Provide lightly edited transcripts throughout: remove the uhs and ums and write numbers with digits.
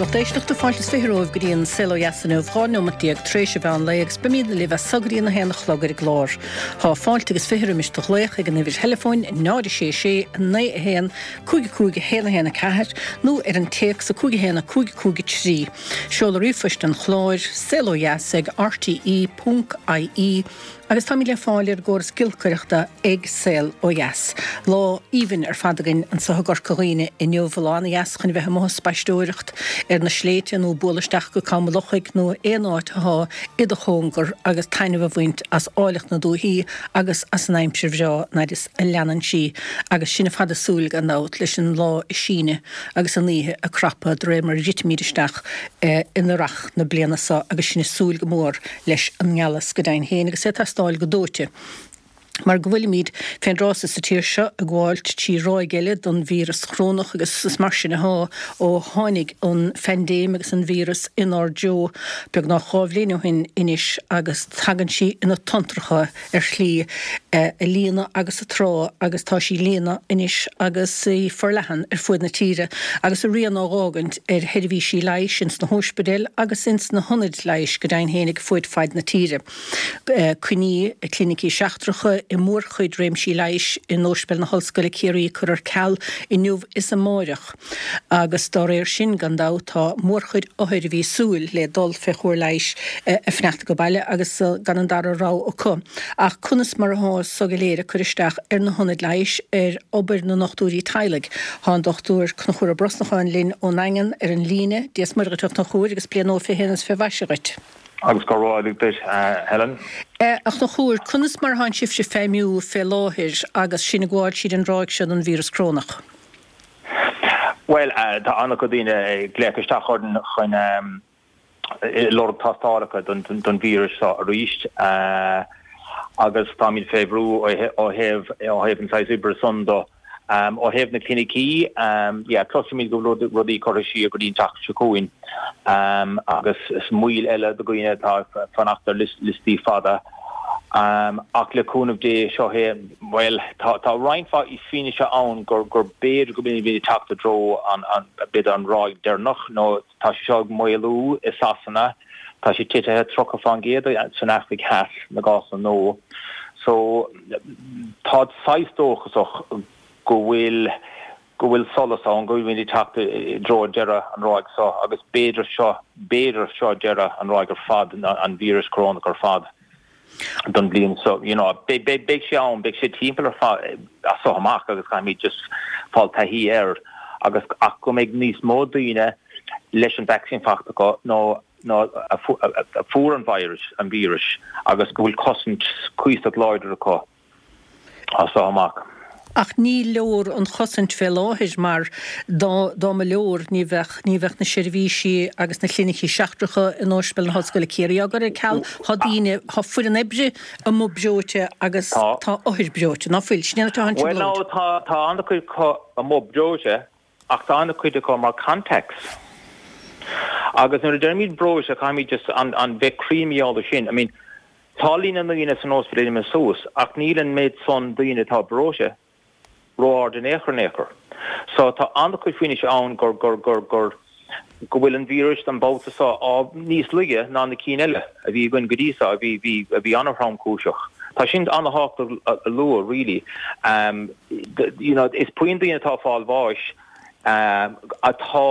Lucht éisteachta, fáilte is 20 romhaibh go dtí an Saol Ó Dheas inniu, 12 neomat tar éis an mheán lae agus beimid libh as so go dtí an 1 a chlog ar an gclár. Tá fáilte agus 20 roimis do ghlaoch ag an uimhir theileafóin 0 6 6 9 1 5 5 1 1 4 nó ar an téacs 5 1 5 5 3. Seoladh ríomhphoist an chláir, saolodheas ag rte ponc ie. Agus táimid le fáil ar an gcóras giolcaireachta ag Saol Ó Dheas. Lá aoibhinn ar fad againn anseo i gCorca Dhuibhne inniu, lá ana-dheas chun a bheith amuigh ag spaisteoireacht ar na sléibhte nó bualadh isteach go Cam an Lochaigh nó aon áit athá i do chóngar agus taitneamh a bhaint as áilleacht na dúichí agus as an aimsir bhreá an fhaid is a leanann sí agus sinn ar fad ag súil gan dabht leis an lá ag síneadh agus an oíche ag crapadh de réir mar a dhruidimid isteach in earrach na bliana seo agus sinn ag súil go mór leis an ngealas go deimhin féin agus é ag teastáil go dóite mar go bhfuilimid fén dtráth so sa tír seo ag gabháilt trí ráig eile don víreas chorónach agus is mar sin athá ó tháinig an phaindéim agus an víreas inár dtreo beagnach 2 bhliain ó shin anois agus tagann sí ina tonntracha ar shlí ag líonadh agus ag trá agus tá sí ag líonadh anois agus í forleathan ar fuaid na tíre agus a rian á dh'fhágaint ar sheirbhísí leighis ins na hóispidéil agus ins na hionaid leighis go deimhin féinig fuaid faid na tíre. Coinní clinicí seachtracha i mórchuid réimsí leighis in Óispidéal na hOllscoile Ciarraí curtha ar ceal inniu is amáireach agus dá réir sin gan dabht tá mórchuid othair a bhí ag súil le dul fé chóir leighis ag fanacht age baile agus gan an dara rogha acu. Ach conas mar athá so go léir ag cur isteach ar na hionaid leighis, ar obair na ndochtúirí teaghlaigh? Tá an Dochtúir Conchúr Ó Brosnacháin linn ón nDaingean ar an líne. Dia 's Muire dhuit a Chonchúir agus bliain nua 21 is fé mhaise dhuit. Agus go raibh maith duit, a Helen. A Chonchúir, conas mar atánn sibhse ag feidhmiú fé láthair agus sinn ag gabháil tríd an ráig seo den víreas corónach? Bhuel, tá an-chuid daoine ag glaoch isteach orainn chun lorg tástálacha don víreas seo arís agus táimid fé bhrú ó thaobh ó thaobh an saghas oibre san do. Ó thaobh na clinicí, yeah, cloisimid go bhfuil rudaí curtha siar go dtí an tseachtain seo chugainn agus is moill eile do dhaoine atá ag fanacht ar liostaí fada. Ach le cúnamh Dé, seo é, bhuel, tá tá roinnt mhaith fianaise ann gur gur b'fhéidir go bhfuilimid ag teacht i dtreo an b'fhéidir an ráig deireanach nó Tá sé seo ag maolú i Sasana. Tá sé titithe 30% san Afraic Theas, na gcásanna nua. So, táid saghas dóchasach go bhfuil go bhfuil solas ann, go bhfuilimid ag teacht i dtreo deireadh an ráig seo agus b'fhéidir seo, b'fhéidir seo deireadh an ráig ar fad, an víreas corónach ar fad. don bhliain seo. You know, beidh, beidh, beidh sé ann, beidh sé timpeall ar fad as seo amach agus caithfimid just fáil taithí air agus ach go mbeidh níos mó daoine leis an vaccine faighte acu nó nó a a fuair an virus, an víreas agus go bhfuil cosaint cuíosach láidir acu. as seo amach. Ach ní leor an chosaint fé láthair mar dá dá mba leor ní bheadh ní bheadh na seirbhísí agus na clinicí seachtracha in Ospidéal na hOllscoile Ciarraí á gcur ar ceal. Tá daoine, tá foireann oibre amuigh breoite agus tá othair breoite, ná fuil? Sin é atá an Bhuel no, tá tá an-chuid acu amuigh breoite ach tá an-chuid acu mar contacts. Agus nuair a deirimid breoite caithfimid just an an bheith cruinn mar gheall air sin. I mean Tá líon na ndaoine san ospidéal imithe suas ach níl an méid san daoine atá breoite ró-ard in aon chor in aon chor. So tá an-chuid fianaise ann gur, gur, gur, gur, go bhfuil an víreas an babhta seo á, níos laige ná na cinn eile a bhí againn go dtí seo a bhí, bhí, a bhí an-thromchúiseach. Tá sin an-thábhachtach a lua really. You know, is puinn daoine atá ag fáil bháis atá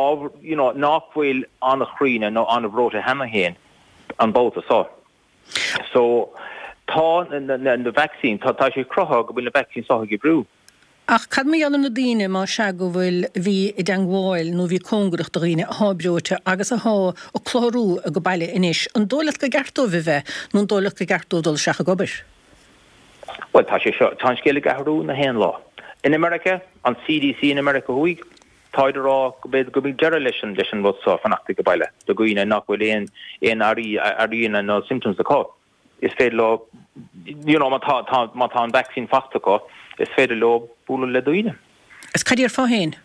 á, you know, nach bhfuil an-chríonna nó an-bhreoite cheana féin. an babhta seo. So, tá na vaccines, tá sé cruthaithe go bhfuil na vaccines seo ag oibriú. Ach cad mar gheall ar na daoine, más ea go bhfuil, a bhí i dteangmháil nó a bhí cóngarach do dhaoine athá breoite agus athá ag clutharú age baile anois, an dóigh leat gur ceart dóibh a bheith nó an dóigh leat gur ceart dóibh dul isteach ag obair? Bhuel, tá sé seo, tá an scéal ag athrú na haon lá. In America, an CDC in America Thuaidh, Táid a rá go b'fhéidir go mbeidh deireadh leis an leis an rud seo, fanacht age baile, do dhaoine nach bhfuil aon aon airí airíonna nó symptoms acu. Is féidir leo, you know, má tá tá má tá an vaccine faighte acu, is féidir leo bualadh le daoine. Is cad déarfá féin?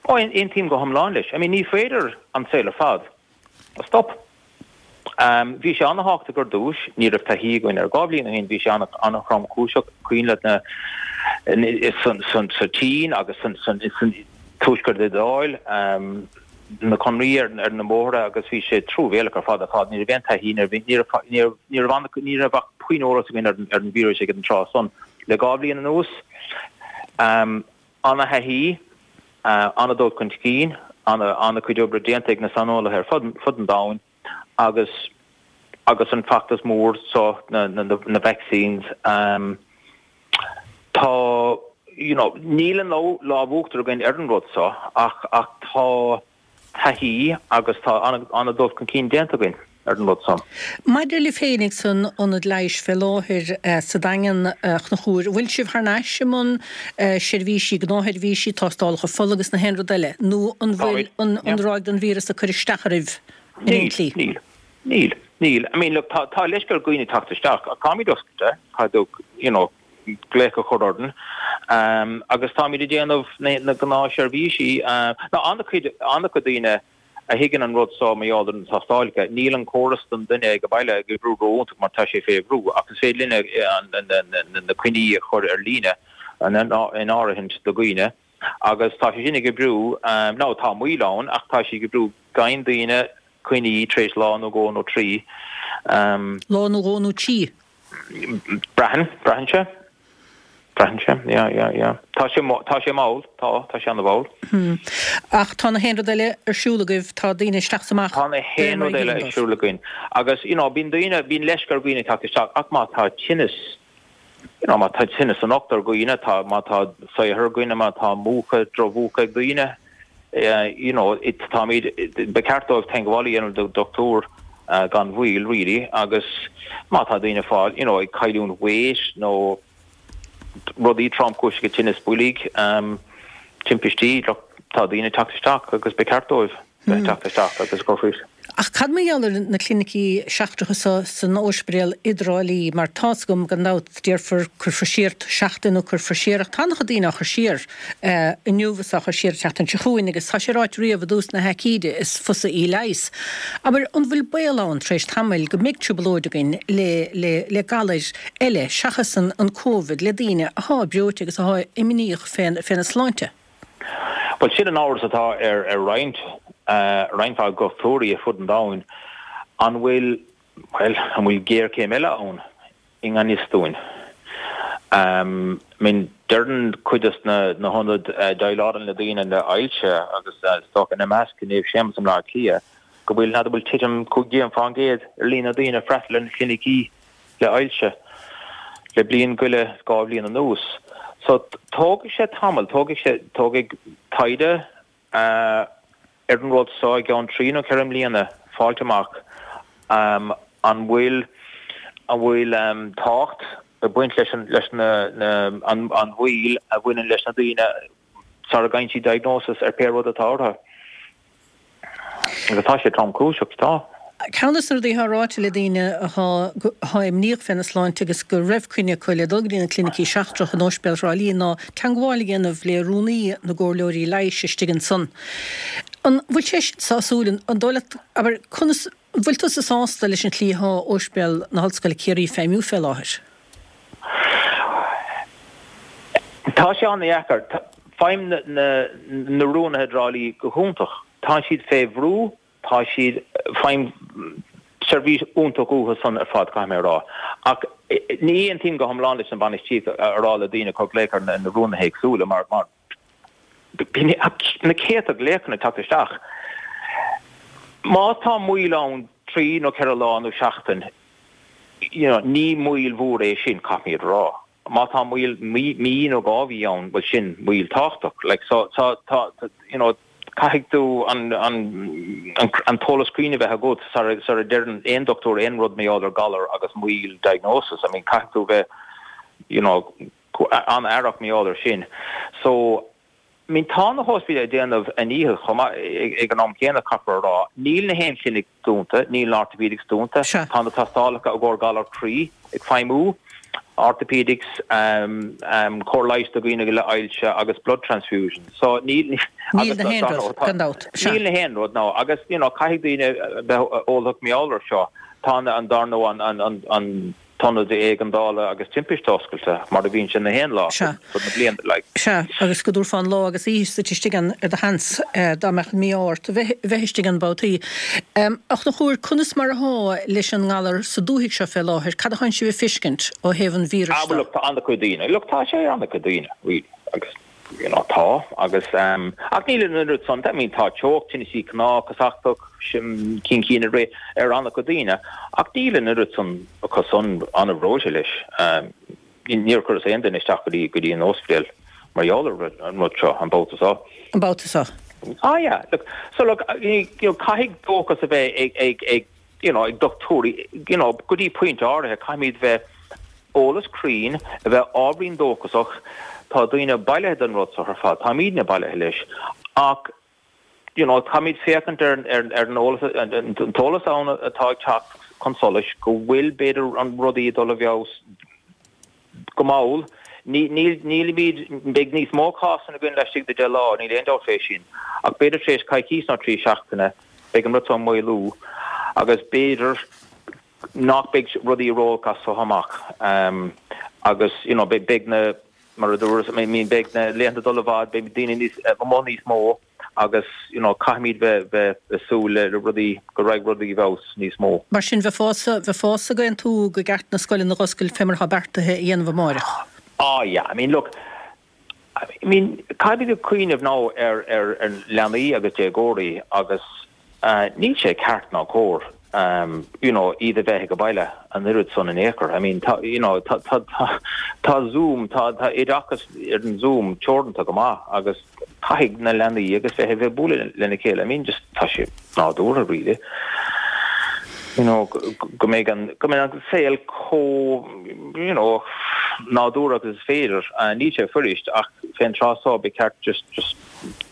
Ó, aontaím go hiomlán leis. I mean, ní féidir an saol ar fad a stop. Bhí sé an-thábhachtach ar dtús, ní raibh taithí againn air. 2 bhliain ó shin bhí sé an-thromchúiseach, cuimhin leat na sa tSín agus san Tuaisceart Iodáil. na conairí ar na bóithre agus bhí sé truamhéalach ar fad ar fad. Ní raibh aon taithí, ní raibh, ní raibh, ní raibh ach puinn eolas againn ar an víreas ag an tráth san. Le 2 bhliain anuas, ana-thaithí, ana-dul chun cinn, ana-chuid oibre déanta ag na saineolaithe ar fud an domhain agus agus an feachtas mór seo, na vaccines, tá, you know, níl an lámh uachtar againn ar an rud seo ach ach tá taithí agus tá an-dul chun cinn déanta againn ar an rud seo. Maidir libh féinig san ionad leighis fé láthair sa Daingean, a Chonchúir, an bhfuil sibh thar n-ais i mbun seirbhísí, gnáthsheirbhísí, tástálacha fola agus na haon rud eile, nó an bhfuil an ráig den víreas ag cur isteach oraibh in aon tslí? Níl, níl, níl. I mean, look, tá, tá leisce ar dhaoine teacht isteach ach táimid oscailte, caithfidh tú, you know, glaoch a chur orainn agus táimid ag déanamh na gnáthsheirbhísí. Now, an-chuid, an-chuid daoine a thuigeann an rud seo mar gheall ar na tástálacha. Níl an córas don duine ag an baile ag oibriú ró-iontach mar tá sé fé bhrú ach is féidir linn na coinní a chur ar líne in áirithint do dhaoine agus tá sé sin ag oibriú. Now, tá moill ann ach tá sé ag oibriú. Faigheann daoine coinní tar éis lá nó dhó nó trí. Lá nó dhó nó trí? Braitheann, braitheann sé. Braitheann sé, yeah, yeah, yeah. Tá sé, tá sé mall, tá, tá sé ana-mhall. Hmm. Ach tá na haon rud eile ar siúl agaibh, tá daoine isteach 's amach. Tá na haon rud eile ar siúl againn. Agus, you know, bíonn daoine, bíonn leisce ar dhaoine teacht isteach, ach má tá tinneas, you know, má tá tinneas san ucht ar dhaoine, tá, má tá saothar ar dhaoine, má tá múchadh, drochmhúchadh ag daoine, you know, it, táimid, ba cheart dóibh teagmháil a dhéanamh le dochtúir gan mhoill, really, agus má tá daoine ag fáil, you know, ag cailliúint weight nó rudaí tromchúiseacha, tinneas boilg, timpistí, look, tá daoine ag teacht isteach agus ba cheart dóibh. bheith ag teacht isteach agus ag cur faoi. Ach cad mar gheall ar na clinicí seachtracha so san Ospidéal i dTrá Lí, mar tá's agam gan dabht déarfar cuirfear siar seachtain nó cuirfear siar ach tá an-chuid daoine á chur siar inniu is á chur siar an tseachtain seo chugainn agus tá sé ráite riamh i dtús na haicíde is fusa í leigheas. Abair, an bhfuil baol ann tar éis tamaill go mbeidh trioblóid againn le le le galair eile seachas an an Covid le daoine athá breoite agus athá imníoch féna sláinte? Bhuel, sin an amhras atá ar roinnt, roinnt mhaith dochtúirí ar fud an domhain, an bhfuil, bhuel, an bhfuil géarchéim eile ann i ngan fhios dúinn? I mean, deireann cuid de na hionaid a dhéileálann le daoine le hailse agus is dócha ina measc Naomh Séamus i mBleá Cliath, go bhfuil, n'fheadar, bhfuil titim 15% ar líon na daoine ag freastal ar na clinicí. le ailse le bliain go leith, 2 bhliain anuas. So, tógfaidh sé tamall, tógfaidh sé, tógfaidh taighde ar an rud so i gceann trí nó ceithre mbliana fáilt amach an bhfuil, an bhfuil tábhacht ag baint leis an, leis na, na, an, an mhoill a bhaineann leis na daoine sara bhfaigheann siad diagnosis ar pé rud atá orthu. Agus tá sé tromchúiseach, tá. Ceann de na rudaí atá ráite le daoine atá atá imníoch féna sláinte agus go raibh coinne acu le dul go dtí na clinicí seachtracha in Ospidéal Thrá Lí ná teangmháil a dhéanamh le rúnaí na gcomhairleoirí leighis istigh ansan. An bhfuil sé sin sásúil? An dóigh leat, abair, conas, an bhfuil tusa sásta leis an tslí atá Ospidéal na hOllscoile Ciarraí ag feidhmiú fé láthair? Tá sé an-dheacair. Faighim na rúnaithe i dTrá Lí go hiontach. Tá siad fé bhrú, tá siad, faighim seirbhís iontach uathu san ar fad, caithfidh mé a rá. Ach ní aontaím go hiomlán leis an bhainistíocht a rá le daoine cur glaoch ar na rúnaithe éagsúla mar bíonn na céadta glaochanna ag teacht isteach. Má tá moill ann trí nó ceithre lá nó seachtain, you know, ní moill mhór é sin, caithfimid a rá. Má tá moill mí, mí nó 2 mhí ann, bhuel sin moill tábhachtach. Like, so, tá, tá, you know, caithfidh tú an, an, an, an t-eolas cruinn a bheith agat sara, sara deireann aon dochtúir aon rud mar gheall ar galar agus moill diagnosis. I mean, caithfidh tú bheith, you know, an-aireach mar gheall ar sin. So, I mean, tá na hóspidéil ag déanamh a ndícheall chomh maith ag an am céanna, caithfear a rá. Níl na haon chlinic dúnta, níl an orthopaedics dúnta, tá na tástálacha i gcomhair galar croí ag feidhmiú, orthopaedics, cóir leighis do dhaoine le ailse agus blood transfusion. So níl, Níl na haon rud, gan dabht. Níl na haon rud, no. Agus, you know, caithfidh daoine bheith eolach mar gheall ar seo. Tá an, dar ndóigh, an, an, an, an. t-ionad éigeandála agus timpiste oscailte mar a bhíonn sé na haon lá fud na bliana like. Sea, agus go dtabharfá an lá agus oíche duit istigh ann ar do sheans dá mbeadh an mí-ádh ort a bheith istigh ann babhtaí. A Chonchúir, conas mar athá leis an ngalar sa dúthaigh seo fé láthair? Cad athánn sibh a fiscint ó thaobh an víris Ah, well look, tá an-chuid daoine, look tá sé ar an-chuid daoine, really, agus. You know, tá, agus, ehm, ach níl an oiread san, I mean, tá teocht, tinneasaí cnámh, casachtach, cinn cinn ar, ar an-chuid daoine, ach níl an oiread san acu san an-bhreoite leis. Ehm, níor chuireas aon duine isteach go dtí, go dtí an ospidéal mar gheall ar an rud seo, an babhta seo. An babhta seo. Ah yeah, look, so look, you know, caithfidh dóchas a bheith ag, ag, ag, you know, ag dochtúirí, you know, go dtí pointe áirithe, caithfimid bheith eolas cruinn, a bheith ábhairín dóchasach, tá daoine bailithe den rud seo ar fad, táimidne bailithe leis, ach, you know, caithfimid féachaint ar, ar, ar an eolas, an t-eolas ann atá ag teacht chun solais, go bhfuil, b'fhéidir, an rudaí ag dul i bhfeabhas go mall. Ní, níl, nílimid, beidh níos mó cásanna againn laistigh de 10 lá, níl aon dabht fé sin, ach b'fhéidir tar éis coicís nó 3 seachtaine, beidh an rud seo ag maolú agus b'fhéidir nach mbeidh rudaí ró-olc as so amach agus you know beidh na, mar a dúras, I mean beidh na laethanta ag dul i bhfad, beidh daoine níos, amuigh níos mó agus you know caithfimid bheith, bheith ag súil le rudaí, go raghaidh rudaí i bhfeabhas níos mó. Mar sin bheifeása, bheifeása ag aontú go gceart na scoileanna a dh'oscailt fé mar atá beartaithe a dhéanamh amáireach? Ah yeah, I mean look, I mean, caithfimid ag cuimhneamh now ar ar leanaí agus déagóirí agus níl sé ceart ná cóir you know iad a bheith ag baile an oiread san in aon chor. I mean, tá you know tá tá tá tá Zoom, tá tá oideachas ar an Zoom teoranta go maith agus caithfidh na leanaí agus bheith a bheith ag bualadh lena chéile. I mean, just tá sé nádúrtha really. You know, go mbeidh an, go mbeidh an saol chomh, you know, nádúrtha agus is féidir. Níl sé fuirist ach fén tráth so ba cheart just, just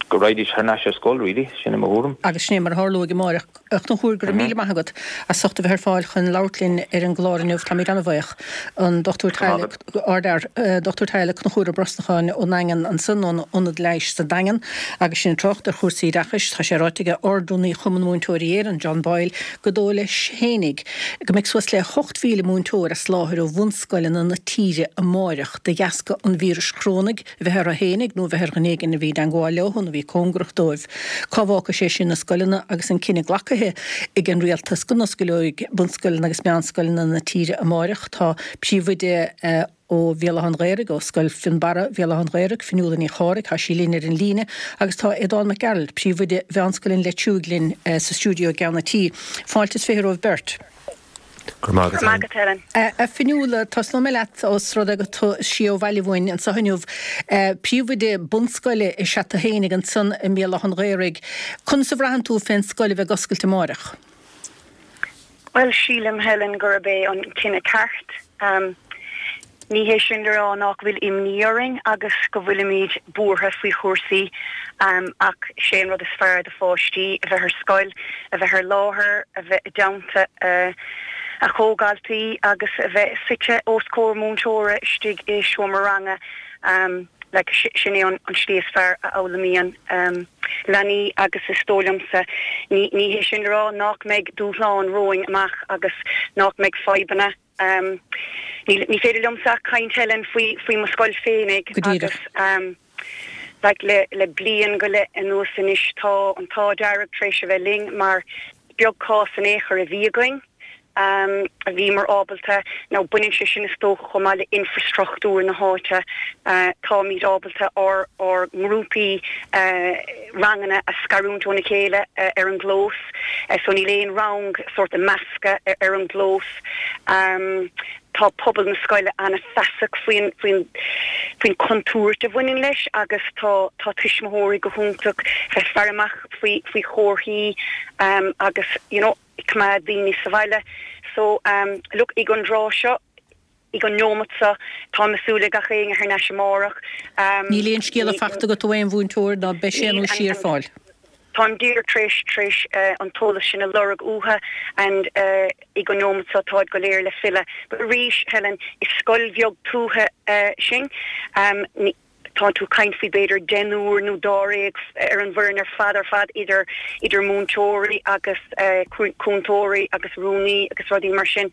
go raghaidís thar n-ais ar scoil really, sin é mo thuairim. Agus sin é mar a tharlóidh amáireach. A Chonchúir, go raibh míle maith agat as ucht a bheith ar fáil chun labhairt linn ar an gclár inniu. Táimid an-bhuíoch. An Dr Teaghlaigh, Ardfhear, Dr Teaghlaigh Conchúr Ó Brosnacháin ón nDaingean ansan, ón Ionad Leighis sa Daingean agus sinn ag trácht ar chúrsaí oideachais. Tá sé ráite aige Ard-Rúnaí Chumann Múinteoirí Éireann, John Boyle, gur dóigh leis fhéinig go mbeidh suas le 8,000 múinteoir as láthair ó bhunscoileanna na tíre amáireach de dheasca an víris chorónaigh a bheith orthu fhéinig nó a bheith ar dhuine éigin a bhí i dteangmháil leo nó a bhí cóngarach dóibh. Cá bhfágfaidh sé sin na scoileanna agus an cinneadh glacaithe ag an rialtas go n-oscaileoidh bunscoileanna agus meánscoileanna na tíre amáireach? Tá príomhoide ó Bhéal Átha an Ghaorthaidh, ó Scoil Fionnbarra, Bhéal Átha an Ghaorthaidh, Fionnuala Ní Chárthaigh, tá sí linn ar an líne agus tá Aodán Mac Gearailt, príomhoide Mheánscoil an Leitriúigh linn sa stiúideo i gceann an tí. Fáilte is 20 romhaibh beirt. Go raibh maith agat, Helen. A Fionnuala, tosnóidh mé leat ós rud é gur tú siar ó bhaile uainn anseo inniu. Príomhoide bunscoile is ea tú fhéinig ansan i mBéal Átha an Ghaorthaidh. Conas a bhraitheann tú fén scoil a bheith ag oscailt amáireach? Bhuel, sílim, Helen, gurb é an cinneadh ceart. Ní hé sin le rá nach bhfuil imní orainn agus go bhfuilimid buartha faoi chúrsaí, ach sé an rud is fearr do pháistí a bheith ar scoil, a bheith ar láthair, a bheith i dteannta a chomhdhaltaí agus a bheith suite os comhair múinteora istigh i seomra ranga. Like, sin é an slí is fearr a fhoghlaimíonn leanaí agus is dóigh liomsa, ní ní hé sin le rá nach mbeidh dúshláin romhainn amach agus nach mbeidh fadhbanna. Ní ní féidir liomsa ach caint Helen faoi faoi mo scoil féinig agus like le le bliain go leith anuas anois tá an t-ádh dearg tar éis a bheith linn mar beag cás in aon chor a bhí againn. a bhíomar ábalta, nó baineann sé sin is dócha chomh maith le infreastruchtúr na háite, táimid ábalta ár ár ngrúpaí ranganna a scarúint óna chéile ar an gclós, so níl aon rang sórt measctha ar an gclós. Tá pobal na scoile an-fheasach faoin faoin faoin chontúirt a bhaineann leis agus tá tá tuismitheoirí go hiontach bheith faire amach faoi faoi chomharthaí agus you know, ag coimeád daoine sa bhaile. So, look, ag an dtráth seo, ag an neomat seo, táim ag súil le gach éinne thar n-ais amárach. Níl aon scéala fachta agat ó aon mhúinteoir ná beidh sé nó sí ar fáil? Táim díreach tar éis, tar éis an t-eolas sin a lorg uathu and ag an neomat seo táid go léir le filleadh. But arís, Helen, is scoil bheag tuaithe sinn. Tá tú ag caint faoi b'fhéidir deichniúr nó dáréag ar an bhfoireann ar fad ar fad idir idir múinteoirí agus cúntóirí agus rúnaí agus rudaí mar sin.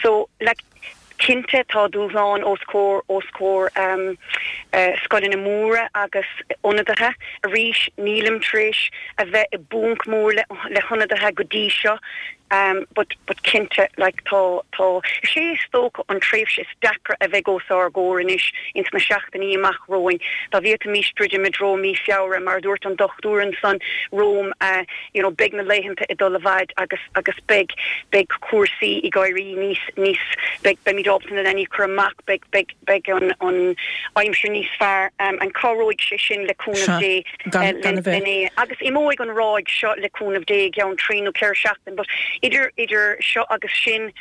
So like. Cinnte tá dúshláin os comhair os comhair scoileanna móra agus ionadaithe. Arís nílim tar éis a bheith i bponc mór le le hionadaithe go dtí seo but but cinnte like tá tá is é is dócha an tréimhse is deacra a bheidh os ár gcomhair anois ins na seachtainí amach romhainn dá bhféadfaimis druidim i dtreo mí Feabhra mar a dúirt an dochtúir ansan romham you know beidh na laethanta ag dul i bhfaid agus agus beidh beidh cúrsaí ag éirí níos níos beidh beimid ábalta na leanaí a chur amach beidh beidh beidh an an aimsir níos fearr and cabhróidh sé sin le cúnamh Dé gan a bheith. lena agus imeoidh an ráig seo le cúnamh Dé i gceann trí nó ceithre seachtain but idir idir seo agus sin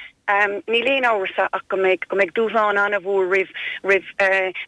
Níl aon amhras ach go mbeidh go mbeidh dúshlán an-mhór roimh roimh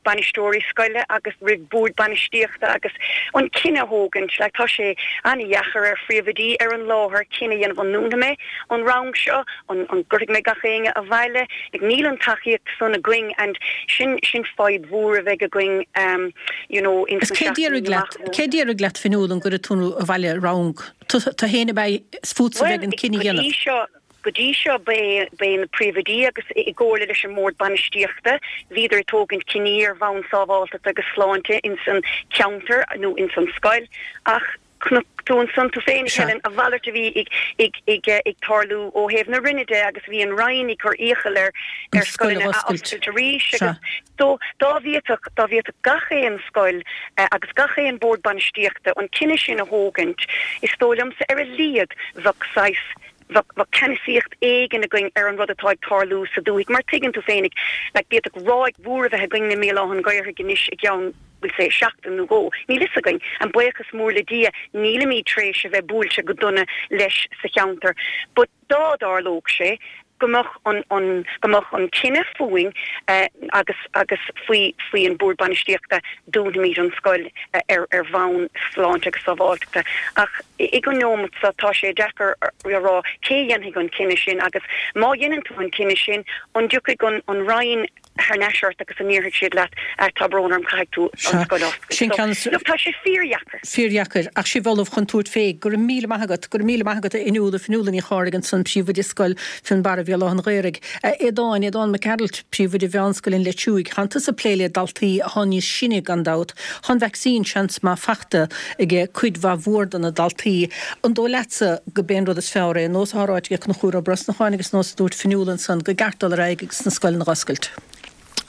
bainisteoirí scoile agus roimh boird bainistíochta agus an cinneadh a thógaint. Like tá sé an-dheachair ar phríomhoidí ar an láthair cinneadh a dhéanamh an ndúnfaidh mé an rang seo, an an gcuirfidh mé gach éinne abhaile. Like níl an tacaíocht san againn and sin sin fadhb mhór a bheidh againn you know ins na seachtainí amach romhainn. Cé déarfaidh leat Fionnuala an gcuirfidh tú abhaile rang? Tú féin ab ea is fútsa a bheidh an cinneadh a dhéanamh. Bhuel go dtí seo Go dtí seo ba é ba é na príomhoidí agus i gcomhairle leis an mbord bainistíochta bhíodar ag tógaint cinní ar bhonn sábháilteachta agus sláinte ins an cheantar nó ins an scoil ach chonaic tú ansan tú féin a Helen a mhalairt a bhí ag ag ag ag tarlú ó thaobh na Roinne de agus bhí an Roinn ag cur iachall ar ar scoileanna a oscailt arís agus so dá bhféadfadh dá bhféadfadh gach aon scoil agus gach aon bord bainistíochta an cinneadh sin a thógaint is dóigh liomsa ar a laghad bheadh saghas Bheadh ceannasaíocht éigin againn ar an rud atá ag tarlú sa dúthaigh, mar tuigeann tú féinig, like, d'fhéadfadh ráig mhór a bheith againn i mBéal Átha an Ghaorthaidh anois i gceann, we'll say, seachtain nó dhó. Níl fhios againn. And buíochas mór le Dia, nílimid tar éis a bheith buailte go dona leis sa cheantar. But dá dtarlódh sé, go mbeadh an, an, go mbeadh an cinneadh fúinn agus, agus faoi, faoi an Bord Bainistíochta, dúnfaimid an scoil ar, ar bhonn sláinte agus sábháilteachta. Ach ag an neomat seo tá sé deacair a rá cé a dhéanfaidh an cinneadh sin agus má dhéanann tú an cinneadh sin, an dtiocfaidh an, an Roinn thar n-ais ort agus an ndéarfaidh siad leat, tá brón orm, caithfidh tú an scoil a oscailt. Sin ceann. So, look, tá sé fíordheacair. Fíordheacair. Ach sibh ullamh chun tabhairt fé. Go raibh míle maith agat. Go raibh míle maith agat a Fhionnuala, Fionnuala Ní Chárthaigh ansan, Príomhoide Scoil Fionnbarra Bhéal Átha an Ghaorthaidh. A Aodáin, Aodán Mac Gearailt, Príomhoide Mheánscoil an Leitriúigh. Tánn tusa ag plé le daltaí athá níos sine gan dabht. Tá an vacsaín seans maith fachta age cuid mhaith mhór de na daltaí. An dóigh leatsa go b'é an rud is fearr é, nós athá ráite age Conchúr Ó Brosnacháin agus nós a dúirt Fionnuala ansan, go gceart dul ar aghaidh agus na scoileanna dh'oscailt?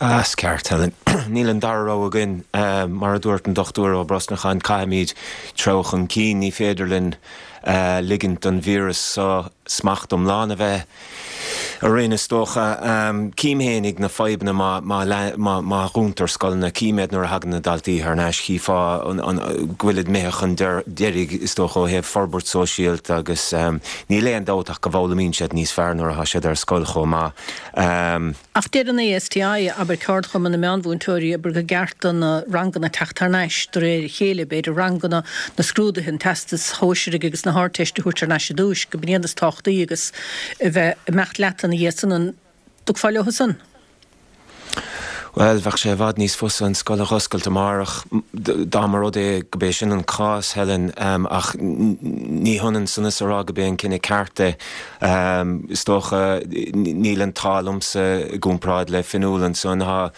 Is ceart, Helen. Níl an dara rogha againn. Mar a dúirt an Dr Ó Brosnacháin, caithfimid treabhadh chun cinn. Ní féidir linn ligint don víreas seo smacht iomlán a bheith orainn, is dócha. Cím fhéinig na fadhbanna má dhúntar scoileanna. Cím iad nuair a thagann na daltaí thar n-ais. Chífeá go bhfuilid imithe chun deiridh, is dócha, ó thaobh forbairt sóisialta agus níl aon dabht ach go bhfoghlaimíonn siad níos fearr nuair atá siad ar scoil chomh maith. Ach deir an ASTI, abair Ceardchumann na Meánmhúinteoirí, abair go gceart do na ranganna teacht thar n-ais de réir a chéile, b'fhéidir ranganna na scrúduithe, an Teastais Shóisearaigh agus na hArdteiste a thabhairt thar n-ais i dtúis, go b'in iad is tábhachtaí agus a bheith ag imeacht leat ina dhiaidh san, an dtiocfá leo san? Bhuel, bheadh sé i bhfad níos fusa an scoil a dh'oscailt amárach dá mba rud é go b'é sin an cás, Helen, ach ní hionann san is a rá go b'é an cinneadh ceart é. Is dócha, níl an t-ádh liomsa i gcomparáid le Fionnuala ansan. Tá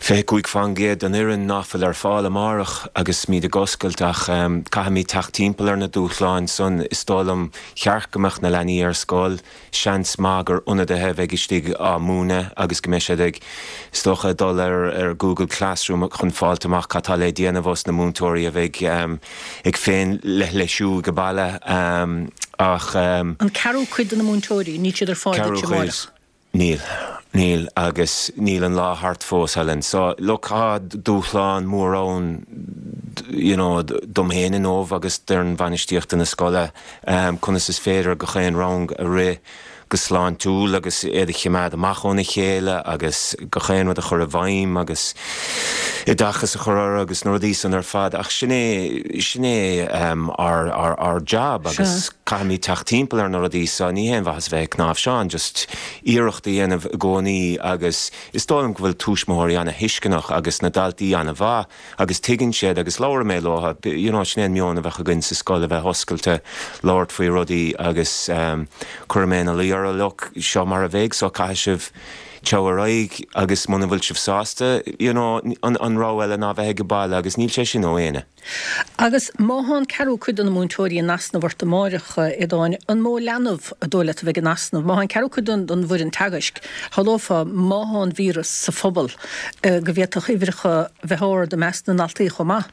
25% den fhoireann ná fuil ar fáil amárach agus muid ag oscailt ach caithfimid teacht timpeall ar na dúshláin san. Is dóigh liom cheart go mbeadh na leanaí ar scoil. Seans maith gur ionadaithe a bheidh istigh á múineadh agus go mbeidh siad ag, is dócha, dul ar Google Classroom chun fáilt amach cad tá le déanamh ós na múinteoirí a bheidh ag féin-leithlisiú ag baile ach. An ceathrú cuid de na múinteoirí, níl siad ar fáil duit amárach? Níl. Níl agus níl an lá thart fós, Helen. So, look, tá dúshlán mór ann, you know, dom féin inniu agus d'fhoireann bhainistíochta na scoile, conas is féidir gach aon rang a rith go sláintiúil agus iad a chimeád amach óna chéile agus gach aon rud a chur i bhfeidhm agus oideachas a chur orthu agus na rudaí san ar fad ach sin é, sin é ár, ár, ár jab agus caithfimid teacht timpeall ar na rudaí so ní haon mhaitheas a bheith ag cnáimhseán just iarracht a dhéanamh i gcónaí agus is dóigh liom go bhfuil tuismitheoirí ana-thuisceanach agus na daltaí ana-mhaith Agus tuigeann siad, agus labhraíonn mé leo, you know, sin é an meon a bheadh againn sa scoil, a bheith oscailte, labhairt faoi rudaí agus cuirfidh mé ina luí orthu, look, seo mar a bheidh so caithfidh sibh. Téigh ar aghaidh agus muna bhfuil sibh sásta, you know, an an rogha eile ná bheith age baile agus níl sé sin ó éinne. Agus má thá an ceathrú cuid de na múinteoirí in easnamh ort amáireach, a Aodáin, an mó leanbh an dóigh leat a bheidh in easnamh? Má thá an ceathrú cuid den bhfoireann teagaisc, shamhlófá, má thá an víreas sa phobal, go bhféadfadh uimhreacha bheith ard i measc na ndaltaí chomh maith.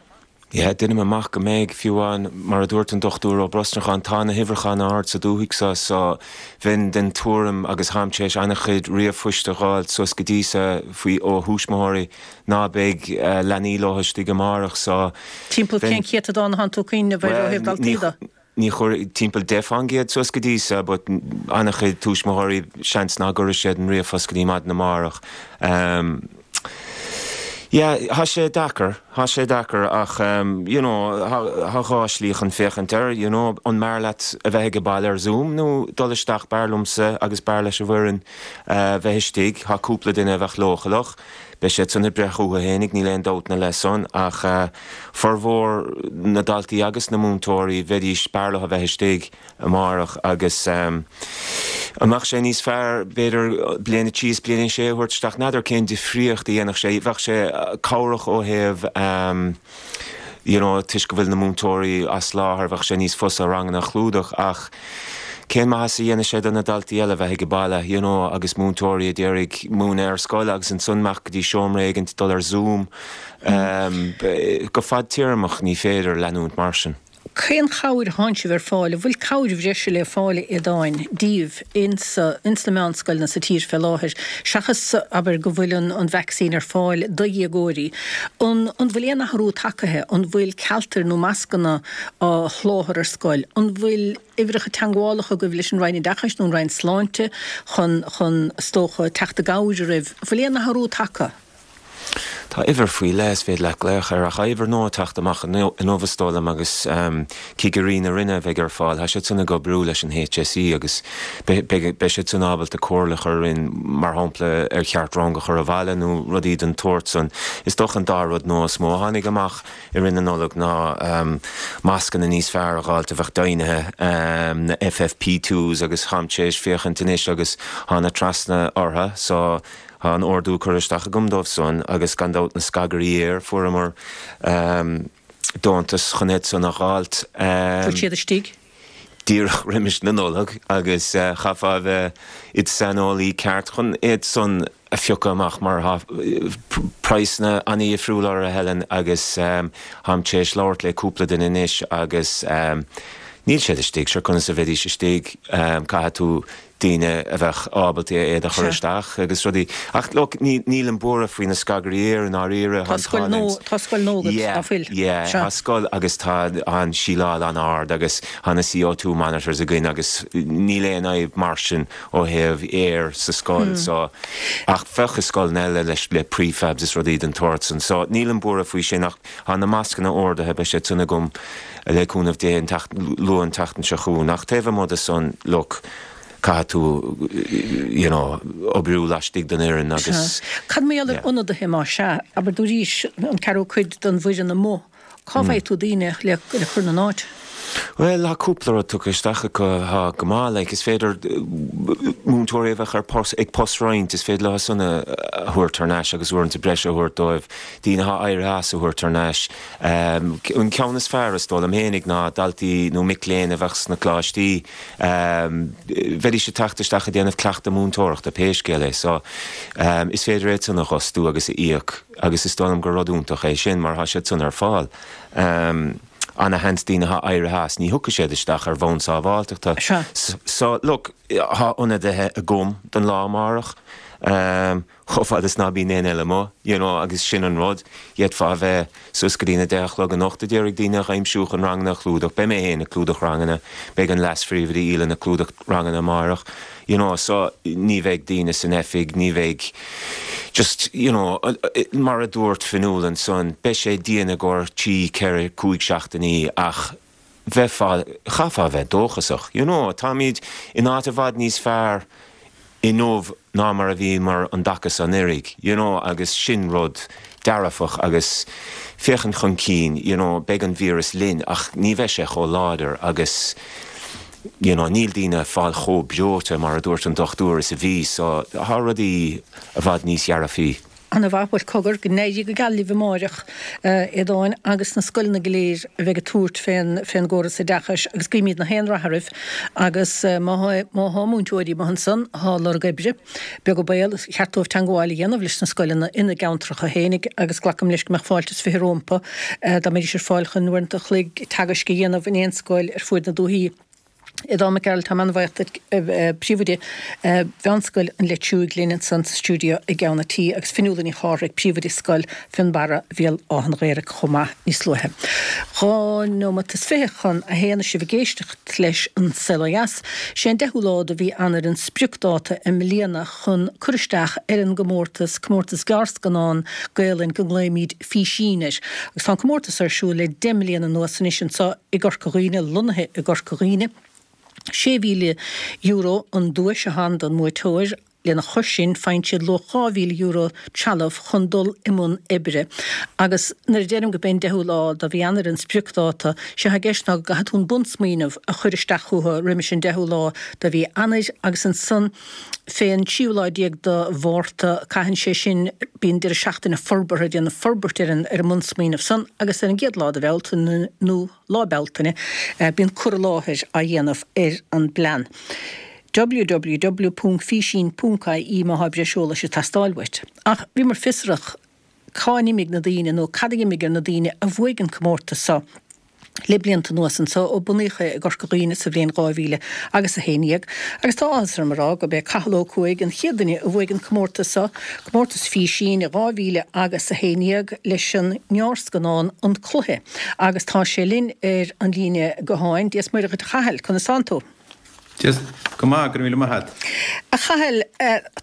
Yeah, deinim amach go mbeidh, fiú amháin, mar a dúirt an Dr Ó Brosnacháin, tá na huimhreacha an-ard sa dúthaigh so, so bheinn den tuairim, agus tháim tar éis an-chuid ríomhphoist a dh'fháilt suas go dtí so faoi ó thuismitheoirí, ná beidh leanaí leo istigh amárach, so Timpeall cén céatadán atánn tú ag cuimhneamh air ó thaobh daltaí de? Ní chuir, timpeall 10% suas go dtí so, but an-chuid tuismitheoirí seans ná gcuirfidh siad an ríomhphost go dtí maidin amárach. Yeah, thá sé deacair, thá sé deacair ach you know, thá dhá shlí chun féachaint air, you know, an mb'fhearr leat a bheith age baile ar Zoom nó dul isteach, b'fhearr liomsa agus b'fhearr leis an bhfoireann bheith istigh, thá cúpla duine a bheadh leochaileach. Beidh siad san ag breith chucu fhéinig, níl aon dabht ina leith san, ach formhór na ndaltaí agus na múinteoirí, bheidís, b'fhearr leo a bheith istigh amárach agus an mbeadh sé níos fearr, b'fhéidir, bliain a trí is bliain a sé a thabhairt isteach? N'fheadar cén difríocht a dhéanfadh sé. Bheadh sé cabhrach ó thaobh you know toisc go bhfuil na múinteoirí as láthair, bheadh sé níos fusa ranganna a chlúdach ach cén maitheas a dhéanfaidh sé do na daltaí eile bheith age baile you know agus múinteoirí a d'iarraidh múineadh ar scoil agus ansan imeacht go dtí seomra éigint dul ar Zoom. Go fadtéarmach ní féidir leanúint mar sin. Cén chabhair atánn sibh ar fáil? An bhfuil cabhair bhreise le fáil, a Aodáin, díbh ins ins na meánscoileanna sa tír fé láthair, seachas, abair, go bhfuil an an vacsaín ar fáil do dhéagóirí? An an bhfuil aon athrú tagaithe? An bhfuil cealtair nó mascanna á sholáthar ar scoil? An bhfuil uimhreacha teangmhálacha agaibh leis an Roinn Oideachais nó an Roinn Sláinte chun chun, is dócha, teacht i gcabhair oraibh? An bhfuil aon athrú tagtha? Tá uimhir faoi leith is féidir leat glaoch air ach tá uimhir nua ag teacht amach inniu is dóigh liom agus cigirí na Roinne a bheidh ar fáil. Tá siad san ag oibriú leis an HSE agus beidh siad san ábalta comhairle a chur orainn mar shampla ar cheart rang a chur abhaile nó rudaí den tsórt san. Is dócha an dá rud nua is mó a tháinig amach i rith na Nollag ná mascanna níos fearr a dh'fháilt a bheadh deimhnithe, na FFP2s agus táim tar éis féachaint anois agus tá na trasna orthu so Tá an ordú curtha isteach agam dóibh san agus gan dabht na scagairí aeir, fuaireamar deontas chun iad san a dh'fháilt. Bhfuil siad istigh? díreach roimis na Nollag agus chaithfeá a bheith id saineolaí ceart chun iad san a phiocadh amach mar tá praghsanna an-dhifriúil orthu, a Helen, agus táim tar éis labhairt le cúpla duine anois agus níl siad istigh, sure conas a bheidís istigh, caithfidh tú daoine a bheadh ábalta iad a chur isteach agus rudaí. Ach look, ní, nílim buartha faoi na scagairí aeir i ndáiríre. Tá scoil nua, tá scoil nua agat, ná fuil? Yeah, yeah, tá scoil agus tá an síleáil an-ard agus tá na CO2 monitors againn agus níl aon fhadhb mar sin ó thaobh aer sa scoil so ach bheadh i scoileanna eile leis le prefabs is rudaí den tsórt san. So nílim buartha faoi sin ach tá na mascanna ordaithe, beidh siad san agam Le cúnamh Dé, an luath an tseachtain seo chugainn. Ach taobh amuigh de san, look, caithfidh tú, you know, oibriú laistigh den fhoireann agus. Sea. Cad mar gheall ar ionadaithe, más ea? Abair dúraís an ceathrú cuid den bhfoireann amuigh. Cá bhfaighidh tú daoine le cur ina n-áit? Bhuel, tá cúpla rud tugtha isteach acu atá go maith. Like, is féidir múinteoirí a bheadh ar post, ag postroinnt, is féidir leo san a thabhairt thar n-ais agus uaireanta breise a thabhairt dóibh, daoine atá éirithe as a thabhairt thar n-ais. An ceann is fearr, is dóigh liom fhéinig, ná daltaí nó mic léinn a bheadh sna coláistí. Bheidís ag teacht isteach ag déanamh cleachtadh múinteoireachta, pé scéal é. So, is féidir iad san a dh'fhostú agus a íoc agus is dóigh liom gur rud iontach é sin mar tá siad san ar fáil. Ana-sheans daoine atá éirithe as, ní thiocfaidh siad isteach ar bhonn sábháilteachta. So, look, tá ionadaithe agam don lá amárach. chomh fada is ná bíonn éinne eile amuigh, you know, agus sin an rud, d'fhéadfá a bheith suas go dtí na deich a chlog anocht a d'iarraidh daoine a aimsiú chun ranganna a chlúdach, beidh mé féin ag clúdach ranganna, beidh an leas-phríomhoide Aoileann ag clúdach ranganna amáireach, you know, so ní bheidh daoine san oifig, ní bheidh just, you know, mar a dúirt Fionnuala ansan, beidh sé dian i gcomhair trí, ceithre, cúig seachtainí ach bheifeá, chaithfeá a bheith dóchasach, you know, táimid in áit i bhfad níos fearr inniu ná mar a bhíomar an dtaca so anuraidh, you know, agus sin rud dearfach agus féachaint chun cinn, you know, beidh an víreas linn ach ní bheidh sé chomh láidir agus. you know níl daoine ag fáil chomh breoite mar a dúirt an dochtúir is a bhí so tá rudaí i bhfad níos dhearfaí. Ana-mhaith, bhuel cogar, go n-éirí go geal libh amáireach, a Aodáin, agus na scoileanna go léir a bheidh ag tabhairt fén, fén gcóras oideachais agus guímid na haon rath oraibh agus má thá, má thá múinteoirí amuigh ansan athá ag lorg oibre, beag an baol, is ceart dóibh teangmháil a dhéanamh leis na scoileanna ina gceantracha fhéinig agus glacaim leis go mbeadh fáilte is 20 rómpa dá mbeidís ar fáil chun uaireanta a chloig teagaisc a dhéanamh in aon scoil ar fuaid na dúthaí. Aodán Mac Gearailt, táim an-bhaoch duit, Príomhoide Mheánscoil an Leitriúigh linn ansan sa stiúideo i gceann an tí agus Fionnuala Ní Chárthaigh, Príomhoide Scoil Fionnbarra, Bhéal Átha'n Ghaorthaidh chomh maith níos luaithe. 2 nóimeat is 20 chun a haon is sibh ag éisteacht leis An Saol Ó Dheas. Sé an 10ú lá de mhí Eanáir an spriocdáta i mbliana chun cur isteach ar an gcomórtas, Comórtas Gearrscannán Gaelainn go nglaoimid Físín air. Agus tá an comórtas ar siúl le 10 mbliana anuas anois anso i gCorca Dhuibhne, lonnaithe i gCorca Dhuibhne. €6,000 an duais atá ann don mbuaiteoir. Lena chois sin, faigheann siad luach €2,000 trealamh chun dul i mbun oibre. Agus nuair a deirim gurb é an 10ú lá de mhí Eanáir an spriocdháta, sé atá i gceist ná go gcaithfidh tú an bunsmaoineamh a chur isteach chucu roimis an 10ú lá de mhí Eanáir agus ansan fén tríú lá déag de Mhárta, caitheann sé sin, bíonn deireadh seachtaine forbartha, déanamh forbairt ar an ar an mbunsmaoineamh san agus ar an gcéad lá de Bhealtaine nó Lá Bealtaine, bíonn cur i láthair á dhéanamh ar an bplean. www.físín.ie má thá breis eolais ag teastáil uait. Ach bhíomar fiosrach cá n-imigh na daoine nó cad a d'imigh ar na daoine a bhuaigh an comórtas so. le blianta anuas anso ó bunaíodh é i gCorca Dhuibhne sa bhliain 2000 agus 11, agus tá áthas orm a rá gurb é Cathal Ó Cuaig an chéad duine a bhuaigh an comórtas so, comórtas Físín i 2000 agus 11 leis an ngearrscannán An Cluiche, agus tá sé linn ar an líne gutháin. Dia 's Muire dhuit a Chathail, conas tánn tú? Dia, go maith, go raibh míle maith a't. A Chathail,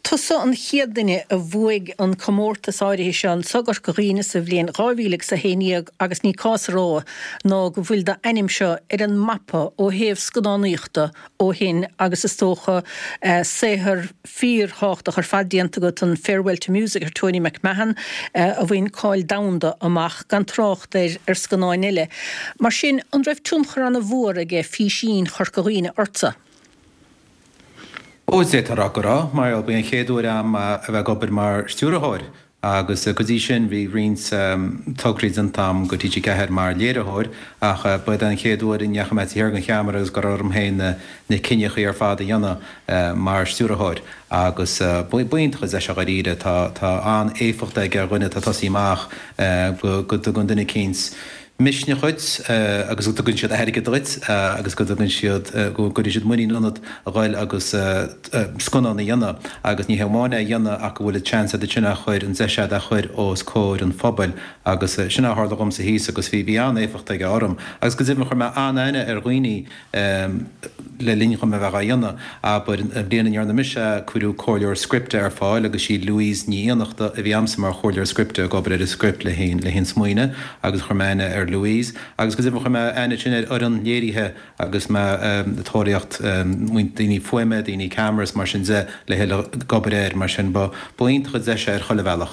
tusa an chéad duine a bhuaigh an comórtas áirithe seo anso i gCorca Dhuibhne sa bhliain 2000 agus 11 agus ní cás a rá ná go bhfuil d'ainm seo ar an mapa ó thaobh scannánaíochta ó shin agus is dócha saothar fíorthábhachtach ar fad déanta agat, an Farewell to Music ar Tony McMahon a bhain cáil domhanda amach, gan trácht ar ar scannáin eile. Mar sin, an raibh tionchar ana-mhór aige Físín Chorca Dhuibhne ortsa? Ó, d'fhéadfá a rá go raibh, mar ba é an chéad uair a'm a bheith ag obair mar stiúrthóir agus go dtí sin bhí roinnt tograí déanta a'm do TG4 mar léiritheoir ach ba é an chéad uair a ndeachaigh mé taobh thiar den cheamara agus go raibh orm féin na cinneachaí ar fad a dhéanamh mar stiúrthóir agus ba iontach an deis é dháiríre. Tá an-éifeacht aige ar dhuine atá ag tosaí amach go dtugann duine eicínt misneach dhuit agus go dtugann siad airgead dhuit agus go dtugann siad, go gcuireann siad muinín ionat a ghoil agus scannán a dhéanamh agus ní hé amháin é a dhéanamh ach go bhfuil an seans agat sin é a chur, an deis agat é a chur os comhair an phobail agus sin é a tharla dhomsa thíos agus bhí, bhí an-éifeacht aige orm agus go deimhin chuir mé an-aithne ar dhaoine le linn dhom a bheith á dhéanamh. Abair, an bhliain a ndearna mise é, cuireadh comhairleoir scripte ar fáil agus sí Louise Ní Fhiannachta a bhí a'msa mar chomhairleoir scripte ag obair ar an script le haghaidh an smaoineamh agus chuir mé aithne ar Louise agus go deimhin chuir mé aithne ansin ar fhoireann léirithe agus mé ag tóraíocht daoine fuaime, daoine ceamara is mar sin de le ag obair air mar sin ba iontach an deis é ar chuile bhealach.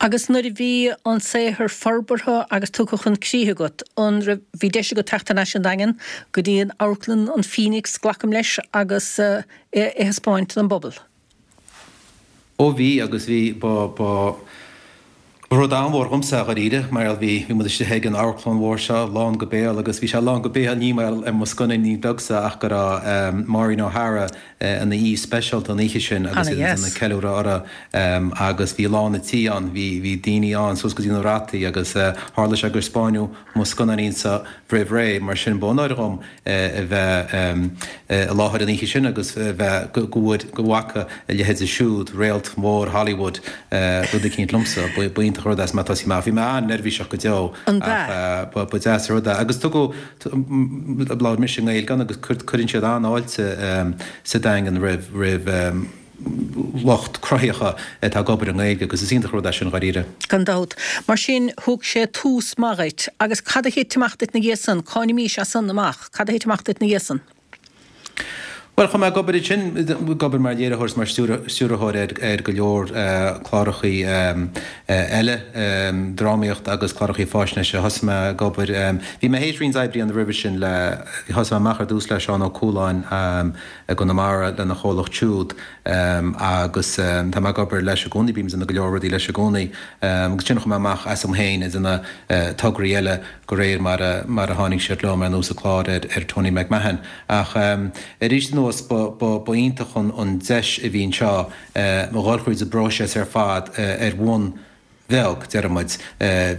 Agus nuair a bhí an saothar forbartha agus tugtha chun críche agat, an raibh, bhí deis agat teacht thar n-ais an Daingean go dtí an amharclann, an Phoenix, glacaim leis, agus é a thaispeáint don bpobal? Ó bhí, agus bhí, ba, ba rud an-mhór dhomsa é dháiríre, mar gheall bhí, bhí muid istigh ag an amharclann mhór seo, lán go béal, agus bhí sé lán go béal ní mar gheall ar mo scannáinín beagsa ach go raibh Maureen O'Hara ina aoi speisialta an oíche sin agus iad ag déanamh ceiliúradh uirthi agus bhí lán an tí ann, bhí, bhí daoine ann suas go dtí na rataí agus tharla sé gur spáineadh mo scannáinín-sa roimh ré, mar sin ba onóir dhom a bheith i láthair an oíche sin agus a bheith, go bhfuair, go bhfaca a leithéide siúd, réalt mhór Hollywood, rud eicínt liomsa. Ba iontach an rud é is mé ag tosaí amach. Bhí mé an-neirbhíseach go deo ach ba deas an rud é. Agus tugadh, labhair mise i nGaeilge ann agus cuireann siad an-fháilte sa Daingean roimh, roimh, lucht cruthaitheacha atá ag obair i nGaeilge agus is iontach an rud é sin dháiríre. Gan dabht. Mar sin, thug sé tús maith dhuit. Agus cad a thit amach duit 'na dhiaidh san? Cá n-imís as san amach? Cad a thit amach duit 'na dhiaidh san? Bhuel, chuaigh mé ag obair ansin, ag obair mar léiritheoir is mar stiúrthóir ar go leor clárachaí eile, drámaíocht agus clárachaí fáisnéise. Thosaigh mé ag obair, bhí mé théis roinnt oibre a dhéanamh roimhe sin le, thosaigh mé amach ar dtús le Seán Ó Cualáin i gConamara lena chomhlacht siúd agus tá mé ag obair leis i gcónaí, bím ag déanamh go leor rudaí leis i gcónaí agus ansin chuaigh mé amach asam féin ag déanamh tograí eile de réir mar a mar a tháinig siad liom, ar nós an clár ar Tony McMahon. Ach arís anuas, ba ba iontach an deis a bhí anseo a dhul thríd an bpróiseas ar fad ar bhonn bheag, déarfaidh muid.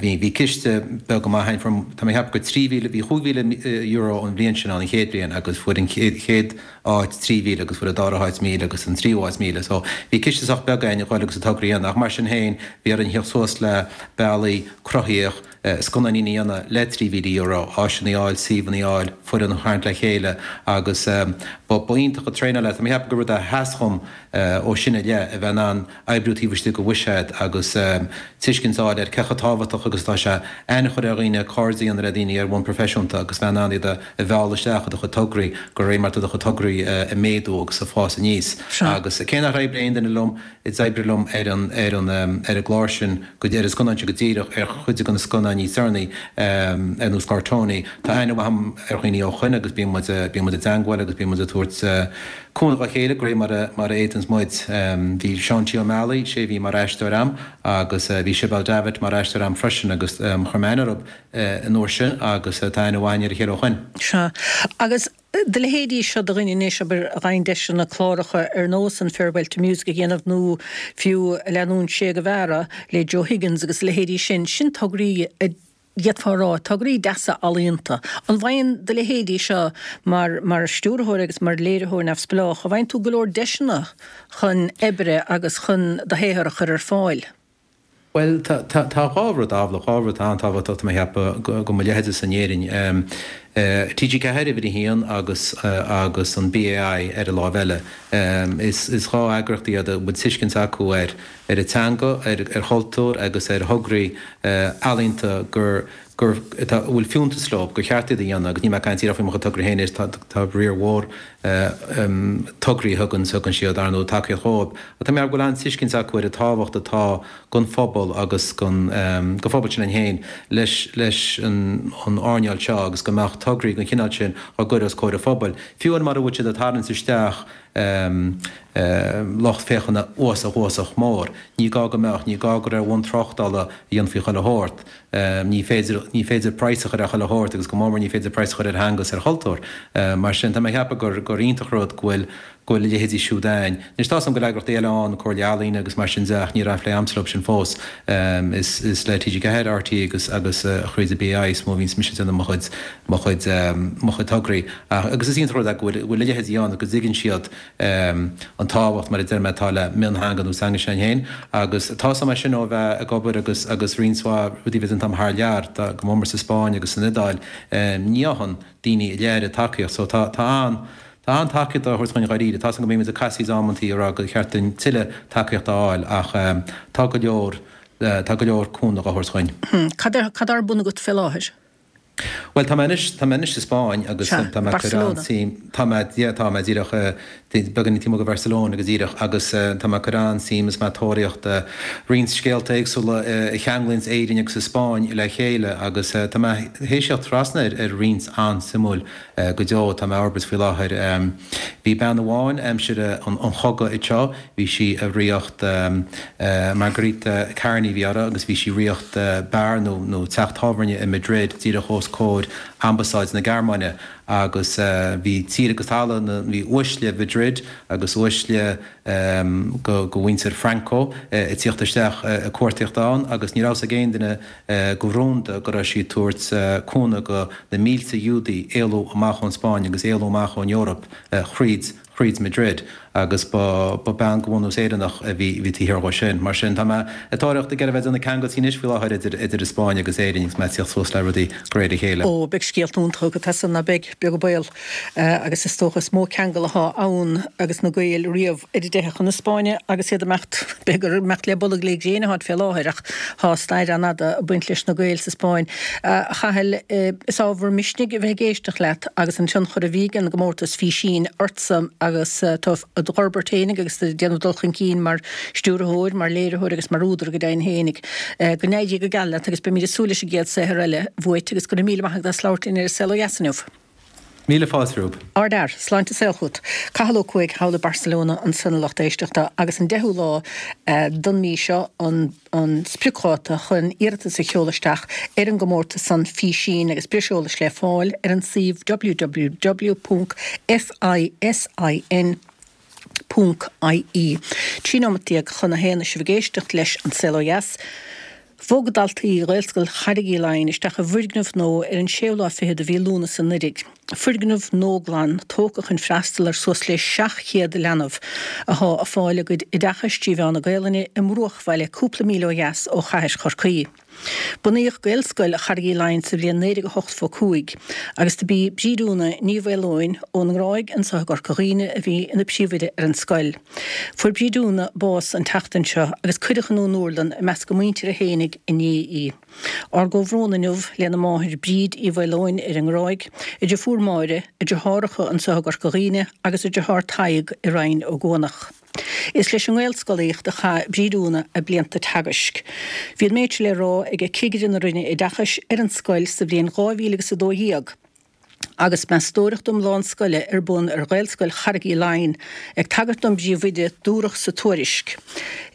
Bhí bhí ciste beag go maith againn, fuair, tá mé ag ceapadh gur 3,000, bhí €5,000 an bhliain sin ann, an chéad bhliain, agus fuair an chéad áit 3,000 agus fuair an dara háit 1,000 agus an tríú háit 1,000. So bhí ciste sách beag againn a dhul agus an togra a dhéanamh ach mar sin féin bhí orainn theacht suas le bealaí cruthaíoch, scannáinín a dhéanamh le €3,000, áiseanna a fháil, suíomhanna a fháil, foireann a tharraingt le chéile agus ba iontach an traenáil é. Tá mé ag ceapadh gur rud a sheas dhom ó sin i leith, a bheith in ann oibriú taobh istigh de bhuiséad agus tuiscint a fháil ar cé chomh tábhachtach agus atá sé aithne a chur ar dhaoine, cairde a dhéanamh le daoine ar bhonn proifisiúnta agus bheith in ann iad a mhealladh isteach i do chuid tograí de réir mar atá do chuid tograí ag méadú agus ag fás aníos. Agus cé nach oibrigh aon duine liom, a d'oibrigh liom ar an ar an ar an gclár sin go ar an scannán sin go díreach, ar chuid de na scannáin níos deireanaí, ar nós clár Tony. Tá aithne mhaith agam ar dhaoine ó shoin agus bíonn muid bíonn muid i dteangmháil agus bíonn muid ag tabhairt cúnamh dá chéile de réir mar a mar a fhéadanns muid. Bhí Seán T. Ó Meallaigh, sé a bhí mar aisteoir a'm agus bhí Sibéal Davitt mar aisteoir a'm freisin agus chuir mé aithne orthu an uair sin agus tá aithne mhaith againn ar a chéile ó shoin. Sea. Agus Do leithéidí seo de dhuine anois, abair, a fhaigheann deiseanna cláracha ar nós an Farewell to Music a dhéanamh nó fiú Leanúint Sé Guevara le Joe Higgins agus a leithéidí sin, sin tograí a d'fhéadfá a rá, tograí deasa ealaíonta. An bhfaigheann do leithéidí seo mar mar stiúrthóir agus mar léiritheoir neamhspleách, an bhfaigheann tú go leor deiseanna chun oibre agus chun do shaothar a chur ar fáil? Bhuel, tá, tá, tá dhá rud ábhalach, dhá rud an-tábhachtach, tá mé ag ceapadh, go mo leithéidese in Éirinn. TG4 uimhir a haon agus, agus an BAI ar an láimh eile. Is, is dhá eagraíocht iad a bhfuil tuiscint acu ar, ar an teanga, ar, ar chultúr agus ar thograí ealaíonta gur, gur, atá, a bhfuil fiúntas leo, gur cheart iad a dhéanamh agus níl mé ag caint díreach faoi mo chuid tograí féin, is tá, tá riar mhór tograí a thugann thugann siad, ar ndóigh, tacaíocht dhóibh. Ach tá mé ag ceapadh go bhfuil an-tuiscint acu ar an tábhacht atá don phobal agus don don phobal sin féin leis leis an an earnáil seo agus go mbeadh tograí den chineál sin á gcur os comhair an phobail, fiú amháin mura bhfuil siad ag tarraingt isteach lucht féachana uafásach uafásach mór. Ní gá go mbeadh, ní gá gur ar bhonn tráchtála a dhéanfaí chuile shórt. Ní féidir, ní féidir praghas a chur ar chuile shórt agus go mór mór ní féidir praghas a chur ar theanga is ar chultúr. Mar sin, tá mé ag ceapadh gur, gur iontach rud go bhfuil, go bhfuil a leithéidí siúd ann. Anois, tá's agam go bhfuil eagraíochtaí eile ann, Comhairle Ealaíne agus mar sin de ach ní raibh aon phlé a'msa leo sin fós. Is, is le TG4, RTÉ agus, agus thríd an BAI is mó a bhíonns mise ag déanamh mo chuid, mo chuid, mo chuid tograí. Ach, agus is iontach rud é go bhfuil, go bhfuil a leithéidí ann agus go dtuigeann siad, an tábhacht, mar a deir mé, atá le miontheanga nó teanga s'againn féin. Agus tá's agam é sin ó bheith ag obair agus agus roinnt mhaith rudaí a bheith déanta agam thar lear, go mór mór sa Spáinn agus san Iodáil, ní fhaigheann daoine an oiread tacaíocht. So tá tá an tá an-tacaíocht á thabhairt dhúinn dháiríre. Tá's agam go mbímid ag casaoid amantaí ag rá gur cheart dúinn tuilleadh tacaíochta a fháil ach tá go leor tá go leor cúnamh á thabhairt dhúinn. Cad cad ar bun agat fé láthair? Bhuel, tá mé anois, tá mé anois sa Spáinn agus Sea, tá mé ag cur Barcelona. an-suim, tá mé, yeah, tá mé díreach, beagáinín taobh amuigh de Bharcelona go díreach agus tá mé ag cur an-suim is mé ag tóraíocht roinnt scéalta éagsúla a cheanglaíonns Éirinn agus an Spáinn le chéile agus tá mé théis theacht trasna ar ar roinnt an-suimiúil go deo, tá mé á fhorbairt faoi láthair. Bhí bean amháin aimsir an chogaidh anseo, Bhí sí ag ríocht Margarita Kearney a bhí uirthi agus bhí sí ag ríocht beár nó nó teach tábhairne i Madrid díreach os comhair ambasáid na Gearmáine agus bhí tír agus talamh na bhí uaisle Mhadrid agus uaisle go go mhuintir Franco ag tíocht isteach ag cuartaíocht ann agus ní raibh fhios ag aon duine go rúnda go raibh sí ag tabhairt cúnamh go na mílte Iúdaí éalú amach ón Spáinn agus éalú amach ón Eoraip thríd thríd Madrid. Agus ba ba bean de bhunús Éireannach a bhí bhí taobh thiar dhó sin. Mar sin, tá mé ag tóraíocht ag iarraidh bheith ag déanamh ceangailtí anois faoi láthair idir idir an Spáinn agus Éirinn agus mé ag tíocht suas le rudaí de réir a chéile. Ó, beidh scéalta iontacha agat as san, ná beidh, beag an baol. Agus is dócha is mó ceangal athá ann agus na Gaeil riamh ar a dteitheadh chun na Spáinne agus iad ag imeacht, b'fhéidir gur imeacht le bolg le gréin atáid fé láthair ach thá stair an-fhada ag baint leis na Gaeil sa Spáinn. A Chathail, is ábhar misnigh a bheith ag éisteacht leat agus an tionchar a bhí ag an gcomórtas Físín ortsa agus tú id dh'fhorbairt fhéinig agus ag déanamh dul chun cinn mar stiúrthóir, mar léiritheoir agus mar údar go deimhin fhéinig. Go n-éirí go geal leat agus beimid ag súil leis an gcéad saothar eile uait agus go raibh míle maith agat as labhairt linn ar An Saol Ó Dheas inniu. Míle fáilte romhaibh. Ardfhear. Sláinte is saol chugat. Cathal Ó Cuaig thall i Barcelona ansan a lucht éisteachta agus an deichiú lá don mí seo an an spriocdháta chun iarratas a sheoladh isteach ar an gcomórtas san Físín agus breis eolais le fáil ar an suíomh www.fisin.ie. 13 nóimeat chun a haon is sibh ag éisteacht leis An Saol Ó Dheas. Bhog daltaí Ghaelscoil Charraig Uí Leighin isteach i bhfoirgneamh nua ar an séú lá fichead de mhí Lúnasa anuiridh. Foirgneamh nua glan, tógtha chun freastal ar suas le 700 leanbh athá ag fáil a gcuid oideachais trí mheán na Gaelainne i mbruachbhaile cúpla míle ó dheas ó chathair Chorcaí. Bunaíodh Gaelscoil Charraig Uí Leighin sa bhliain 1985 agus do b'í Bríd Úna Ní Mhaoileoin ón nGráig anso i gCorca Dhuibhne a bhí ina príomhoide ar an scoil. Fuair Bríd Úna bás an tseachtain seo agus cuireadh in úrlann i measc a muintire fhéinig inné í. Ár gcomhbhrón inniu lena máthair Bríd Uí Mhaoileoin ar an nGráig, a deirfiúr Máire, a deartháireacha anso i gCorca Dhuibhne agus a deartháir Tadhg i Rinn Ó gCuanach. Is leis an nGaelscolaíocht a chaith Bríd Úna a blianta teagaisc. Bhí an méid seo le rá ag Cigire na Roinne Oideachais ar an scoil sa bhliain 2012 agus meastóireacht iomlán scoile ar bun ar Ghaelscoil Charraig Uí Leighin. Ag tagairt don bpríomhoide, dúradh sa tuairisc,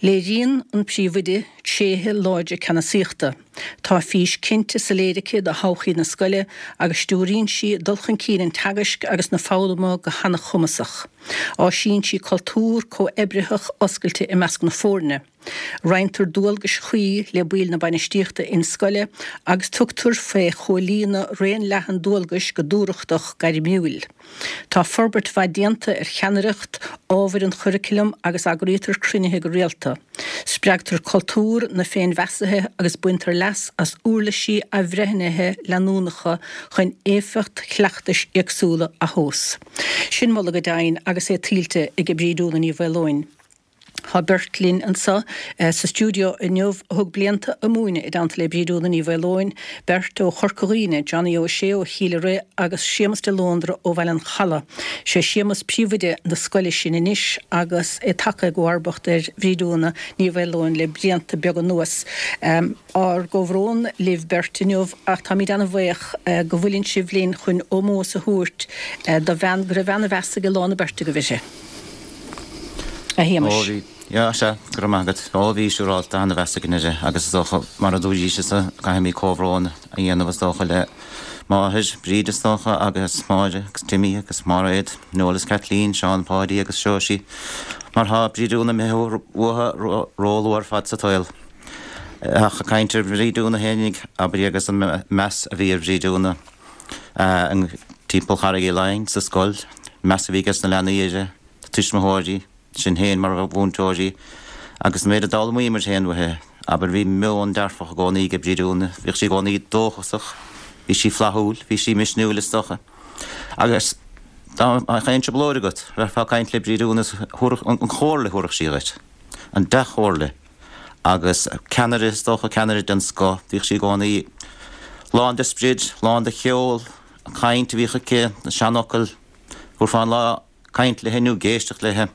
Léiríonn an príomhoide tréithe láidre ceannasaíochta. Tá fís cinnte soiléir aici do thodhchaí na scoile agus stiúraíonn sí dul chun cinn an teagaisc agus na foghlama go han-chumasach. Áisíonn sí cultúr comhoibritheach oscailte i measc na foirne. Roinntear dualgais chuí le baill na bainistíochta in-scoile agus tugtar faoi chomhlíonadh raon leathan dualgais go dúthrachtach gairmiúil. Tá forbairt mhaith déanta ar cheannaireacht ábhair an churaclaim agus eagraítear cruinnithe go rialta. Spreagtar cultúr na féinmheasaithe agus baintear leas as uirlisí athbhreithnithe leanúnacha chun éifeacht chleachtais éagsúla a thomhas. Sin moladh go deimhin agus é tuillte ag Bríd Úna Ní Mhaoileoin. Tá beirt linn anseo sa stiúideo inniu a thug blianta ag múineadh i dteannta le Bríd Úna Ní Mhaoileoin, beirt ó Chorca Dhuibhne, Johnny Ó Sé ó Chill Rithe agus Séamus de Lóndra ó Bhaile an Chalaidh. Sé Séamus príomhoide na scoile sin anois agus é tagtha i gcomharbacht ar Bhríd Úna Ní Mhaoileoin le blianta beaga anuas. Ár gcomhbhrón libh beirt inniu ach táimid ana-bhaoch go bhfuileann sibh linn chun ómós a thabhairt do bhean go raibh ana-mheas ag a lán na beirte agaibh uirthi. A Shéamais. Ó bhí, yeah, sea, go raibh maith agat. Ó bhí, siúráilte, ana-mheas againn uirthi agus is dócha, mar a dúraís, is caithfimid comhbhrón a dhéanamh is dócha le máthair, Bríd is dócha, agus Máire agus Timmy agus Máiréad, Noel is Kathleen, Seán Páidí agus Seoirsí, mar tá Bríd Úna imithe uathu ró-luath ar fad sa tsaol. Ach ag caint ar Bhríd Úna fhéinig, abair agus an meas a bhí ar Bhríd Úna timpeall Charraig Uí Leighin sa scoil, meas a bhí ages na leanaí uirthi, na tuismitheoirí, sinn féin mar mhúinteoirí, agus an méid a d'fhoghlaimíomar féin uaithi. Abair, bhí meon dearfach i gcónaí ag Bríd Úna, bhíodh sí i gcónaí dóchasach, bhí sí flaithiúil, bhí sí misniúil is dócha. Agus dá mbeadh aon trioblóid agat, bheifeá ag caint le Bríd Úna, an chomhairle a thabharfadh sí dhuit, an dea-chomhairle. Agus ceannaire, is dócha, ceannaire den scoth. Bhíodh sí i gcónaí lán de sprid, lán de cheol, an chaint a bhíodh aici, na seanfhocail. Thabharfá an lá caint léithi nó ag éisteacht léithi.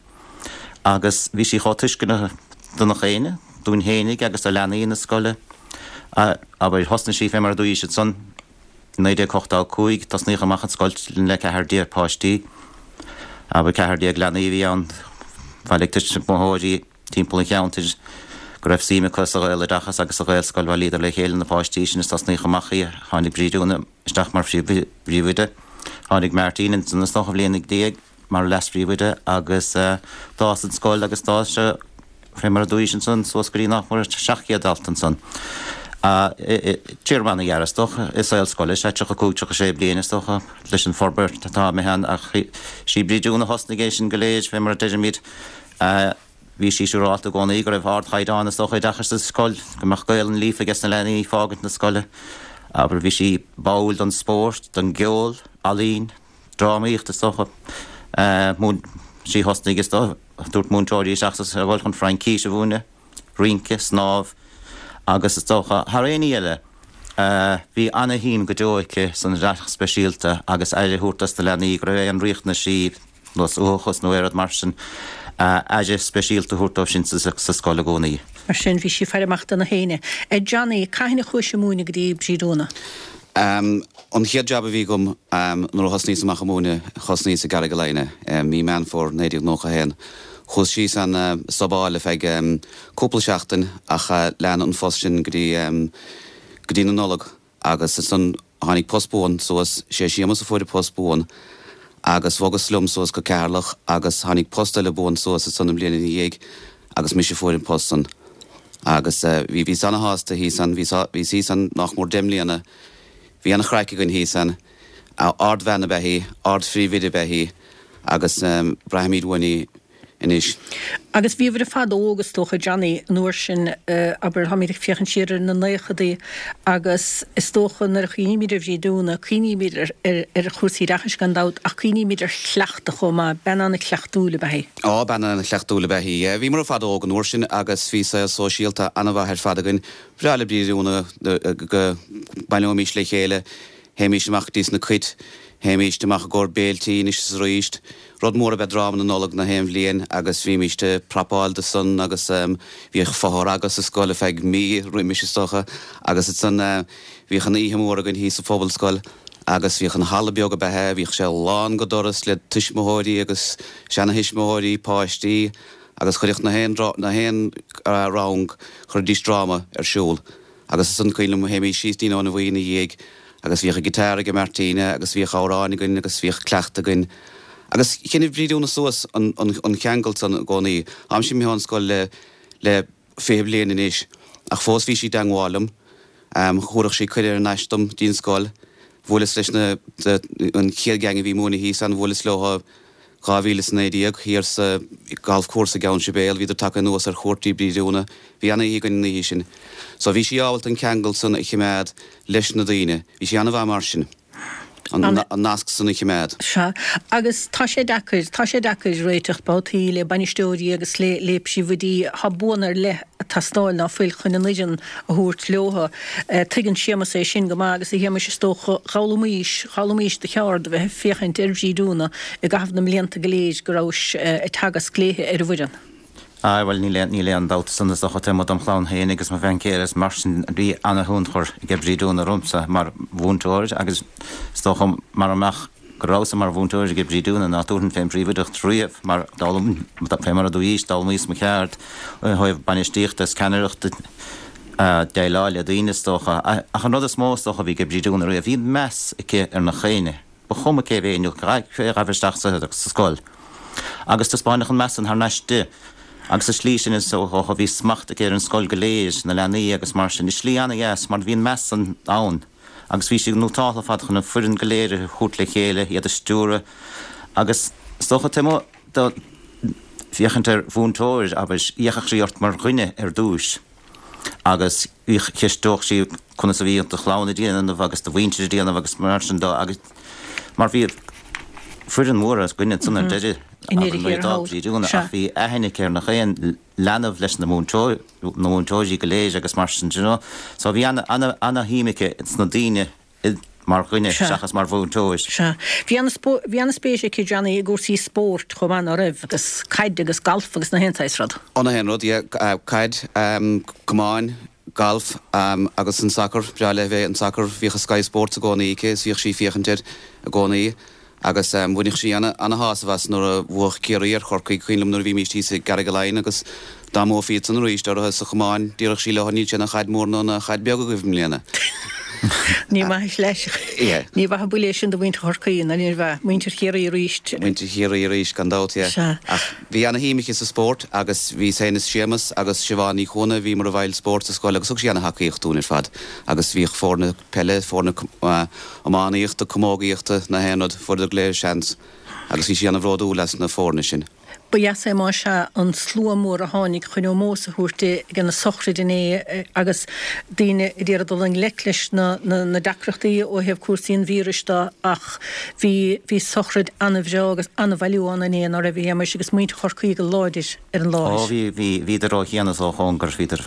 Agus bhí sí chomh tuisceanach do nach éinne, dúinn fhéinig agus do leanaí na scoile. Abair, thosnaigh sí fé mar a dúraís ansan, i 1985, tosnaíodh amach an scoil le 14 páistí. Abair, 14 leanaí a bhí ann. Bhailigh tuismitheoirí. timpeall an cheantair go raibh suim acu sa Ghaeloideachas agus sa Ghaelscoil. Bhailíodar le chéile na páistí sin is tosnaíodh amach í. Tháinig Bríd Úna isteach mar phríomhoide. Tháinig Martin ansan is dócha bhliain ina diaidh mar leas-phríomhoide agus d'fhás an scoil agus d'fhás sé fé mar a dúraís ansan suas go dtí nach mór 700 dalta ansan. Téarma ana-ghearr is dócha i saol scoile, sea, 35, 36 bliain is dócha, leis an forbairt atá imithe ann ach sí Bríd Úna a thosnaigh é sin go léir, fé mar a deirimid. Bhí sí siúrálta i gcónaí go raibh ardchaighdeán is dócha oideachais sa scoil, go mbeadh Gaolainn líofa aige sna leanaí ag fágaint na scoile. Abair, bhí sí báúil don spórt, don gceol, ealaín, drámaíocht is dócha. Múin, sí a thosnaigh is dócha, tabhairt múinteoirí isteach sa scoil chun Fraincís a mhúineadh, rince, snámh agus is dócha, thar aon ní eile, bhí ana-shuim go deo aici san oideachas speisialta agus aire a thabhairt dos na leanaí go raibh aon riachtanaisí nós uathachas nó aon rud mar sin, aire speisialta a thabhairt dóibh sin sa scoil i gcónaí. Mar sin, bhí sí ag faire amach do na héinne. A Johnny, cathain a chuais ag múineadh go dtí Bríd Úna? An chéad jab a bhí agam nuair a thosnaíos amach ag múineadh, thosnaíos i gCarraig Laighin, mí Meán Fómhair 1991. Chuas síos ann subáil ar feadh cúpla seachtain ach lean an phost sin go dtí go dtí na Nollag. Agus ansan tháinig post buan suas, sé Séamus a fuair an post buan, agus bhogas liom suas go Ceatharlach agus tháinig post eile buan suas ansan an bhliain ina dhiaidh agus mise a fuair an post san. Agus bhí, bhíos ana-shásta thíos ann, bhíos, bhíos thíos ann nách mór deich mbliana, bhí ana-chraic againn thíos ann. Ard-bhean ab ea í, ard-phríomhoide ab ea í agus braithimid uainn í. anois. Agus bhíobhair ar fad óg, is dócha, Johnny, an uair sin, abair, táimid ag féachaint siar ar na naochadaí agus is dócha nuair a chuimhnímid ar Bhríd Úna, cuimhnímid ar chúrsaí oideachais gan dabht ach cuimhnímid ar chleachtadh chomh maith, bean an-chleachtúil ab ea í. Á, bean an-chleachtúil ab ea í, yeah. Bhíomar ar fad óg an uair sin agus bhí saol sóisialta an-mhaith ar fad againn. Bhreá le Bríd Úna go mbaileoimis le chéile, théimis amach go dtí sna cait, théimis amach i gcomhair béiltí anois is arís. Rud mór ab ea dráma na Nollag na haon bhliain agus bhímíst ag prapáil do san agus bhíodh fothragadh sa scoil ar feadh mí roimis is dócha agus ansan bhíodh an oíche mhór againn thíos sa Phobalscoil agus bhíodh an halla beag ab ea é, bhíodh sé lán go doras le tuismitheoirí agus seana-thuismitheoirí, páistí agus chuireadh na haon na haon rang, chuiridís dráma ar siúl. Agus ansan cuimhin liom théimís síos dtí'n Abhainn Bhuí ina dhiaidh agus bhíodh an guitar aige Martina agus bhíodh amhráin againn agus bhíodh cleachtadh againn. Agus choinnigh Bríd Úna suas an an cheangal san i gcónaí. Táimse imithe ón scoil le le 20 bliain anois ach fós bhí sí i dteangmháil liom. Thabharfadh sí cuireadh thar n-ais dom dtí'n scoil. Bhuaileas leis na an chéad gang a bhí múineadh thíos ann, bhuaileas leo 2019, thiar sa golf course i gCeann Sibéal, bhíodar tagtha anuas ar chuairt dtí Bríd Úna. Bhí ana-oíche againn an oíche sin. So bhí sí ábalta an ceangal san a chimeád leis na daoine. Bhí sí ana-mhaith mar sin, an nasc san a chimeád. Sea. Agus tá sé deacair, tá sé deacair réiteach babhtaí le bainisteoirí agus le le príomhoidí. Tá buanna ar leith ag teastáil ná fuil chun an fhoireann a thabhairt leo. Tuigeann Séamus é sin go maith agus a Shéamais is dócha, d'fhoghlaimís, d'fhoghlaimís do cheard a bheith ag féachaint ar Bhríd Úna i gcaitheamh na mblianta go léir go rabhais ag teagasc léithe ar an bhfoireann. Aye, bhuel níl aon, níl aon dabht san is dócha taobh amuigh dom chlann féin agus mo bhean chéile is mar sin bhí ana-thionchar ag Bríd Úna ormsa mar mhúinteoir agus is dócha mara mbeadh go rabhas-sa mar mhúinteoir ag Bríd Úna ná tabharfainn fén bpríomhoideacht riamh mar d'fhoghlaim, fé mar a dúraís, d'fhoghlaimíos mo cheard ó thaobh bainistíochta is ceannaireachta, déileáil le daoine is dócha. Ach an rud is mó is dócha a bhí ag Bríd Úna riamh, bhí meas aici ar nach éinne, ba chuma cé bhí nó cé a ghabh isteach sa scoil. Agus taispeáineadh an meas san thar n-ais di. Agus sa slí sin is dócha bhí smacht aici ar an scoil go léir, na leanaí agus mar sin, i slí ana-dheas mar bhí an meas san ann. agus bhí sí nótáltha ar fad chun an foireann go léir a thabhairt le chéile, iad a stiúradh agus is dócha taobh amuigh de féachaint ar mhúinteoir, abair, fhéachadh sí ort mar dhuine ar dtúis agus cheisteodh sí conas a bhí do chlann ag déanamh agus do mhuintir ag déanamh agus mar sin de agus mar bhí foireann mhór againne ansan ar deireadh, abair, nuair a d'fhág Bríd Úna ach bhí aithne aici ar nach aon leanbh leis na múinteoir, na múinteoirí go léir agus mar sin, do you know. So bhí ana, ana, ana-shuim aici sna daoine i, mar dhuine Sea. seachas mar mhúinteoir. Sea. Bhí ana, bhí ana-spéis aici, Johnny, i gcúrsaí spóirt chomh maith, ná raibh? Agus caid agus galf agus na haon saghas rud. Ó, na haon rud, yeah. Caid, camáin, galf, agus an sacar, breá léi bheith an sacar, bhíodh Sky Sports i gcónaí aici is bhíodh sí ag féachaint air i gcónaí. Agus bhaineadh sí ana-shásamh as nuair a bhuadh Ciarraí ar Chorcaigh, cuimhin liom nuair a bhímíst thíos i gCarraig Laighin agus dá mbuafaí iadsan arís orthu sa chamáin, déarfadh sí leo níl sé ina chaid mhór ná ina chaid bheag agaibh i mbliana. Ní maith leis. Ní mhaith an buille é sin do mhuintir Chorcaí, ná níorbh ea? Muintir Chiarraí arís. Muintir Chiarraí arís, gan dabht, yeah. Sea. Ach bhí ana-shuim aici sa spórt agus bhí féin is Séamus agus Siobhán Ní Chuana, bhíomar i bhfeighil spóirt sa scoil agus thug sí ana-thacaíocht dúinn ar fad agus bhíodh foirne peile, foirne iománaíochta, camógaíochta, na haon rud, fuaireadar go léir seans agus bhí sí ana-bhródúil as na foirne sin. Ba dheas é más ea an slua mór a tháinig chun ómós a thabhairt di ag an sochraid inné agus daoine ag iarraidh dul i ngleic leis na deacrachtaí ó thaobh cúrsaí an víris de ach bhí bhí sochraid an-bhreá agus an-bhailiú ann inné, ná raibh a Shéamais, agus muintir Chorcaí go láidir ar an láthair. Ó bhí, bhí, bhíodar ó chian is ó chóngar, bhíodar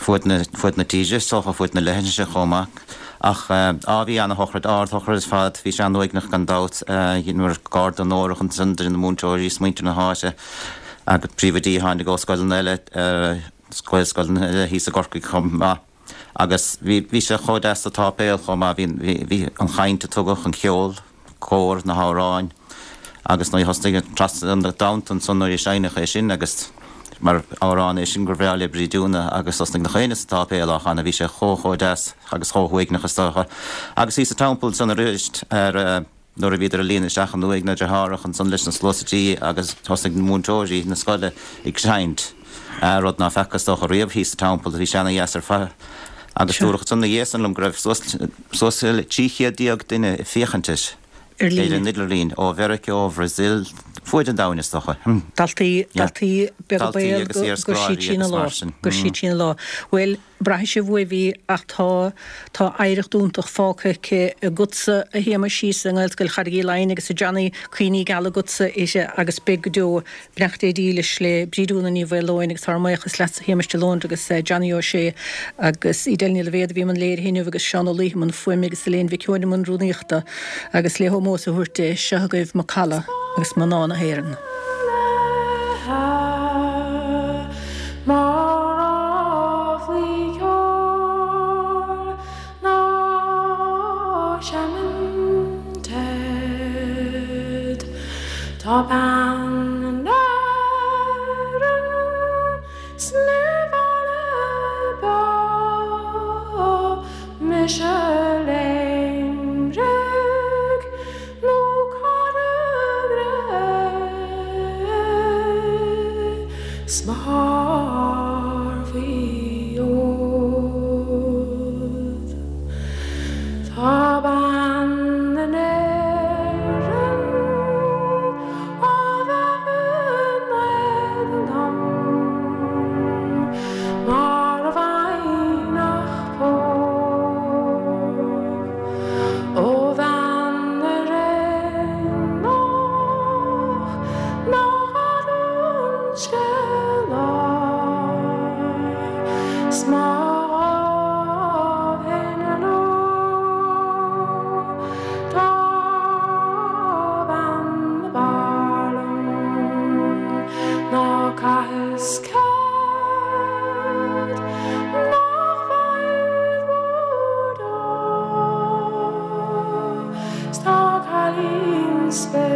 fuaid na, fuaid na tíre is dócha, fuaid na leithinse chomh maith. Ach, á, bhí ana-shochraid, ard-shochraid ar fad, bhí sé an-uaigneach gan dabht, dheineamar garda onórach ansan de na múinteoirí is muintir na háite agus príomhoidí a tháinig ó scoileanna eile, Gaelscoileanna eile thíos i gCorcaigh chomh maith. Agus bhí, bhí sé chomh deas sa tsáipéal chomh maith, bhí, bhí, bhí an chaint a tugadh, an ceol, cór, na hamhráin agus nuair a thosnaigh Trasna na dTonnta ansan nuair a seinneadh é sin agus mar amhrán é sin gur bhreá le Bríd Úna agus thosnaigh nach éinne sa tsáipéal á chanadh, bhí sé chomh chomh deas agus chomh huaigneach is dócha. Agus thíos sa Teampall ansan arís ar nuair a bhíodar ag líonadh isteach an uaigh na deartháireacha ansan leis na sluasaidí agus thosnaigh na múinteoirí na scoile ag seinnt, rud ná feaca is dócha riamh thíos sa Teampall, bhí sé ana dheas ar fad. Agus dúradh ansan ina dhiaidh san liom go raibh suas suas le 1300 duine ag féachaint air Ar líne. ar an idirlíon, ó Mheiriceá, ó Bhrazil, fuaid an domhain is dócha. Daltaí, daltaí beaga Daltaí baol agus go, go iarscoláirí siad sin agus a lá, mar sin. go siad sin a lá. Bhuel, braithfidh sibh uaibh í ach tá, tá oidhreacht iontach fágtha aici agatsa a Shéamais thíos i nGaelscoil Charraig Uí Leighin agus a Johnny, cuimhní geala agatsa uirthi agus beidh go deo. Beannacht Dé dílis le Bríd Úna Ní Mhaoileoin agus ár mbuíochas leatsa a Shéamais de Lóndra agus Johnny Ó Sé agus Edel Ní Loibhéad a bhí i mbun léirithe inniu agus Seán Ó Laoithe i mbun fuaime agus Elaine Mhic Eoin i mbun rúnaíochta agus le hómós a thabhairt di, seo agaibh Macalla agus Mná na hÉireann. Mar ráflaí ceoil ná seinneann Ted. Tá bean na hÉireann 's ní bhaile beo mise Léimrigh nó Carraig Ré 's mo shár faoi fhód. Tá bean na nÉireann á bheith in éadan dom mar a bhfaighinn ach póg ó bhean na Réanach nach fhad an scéal 's má ghabh fhéin leo tá bean na b'fhearr liom ná caitheas cead nach bhfaighid bhur dó 's tá cailín spéir.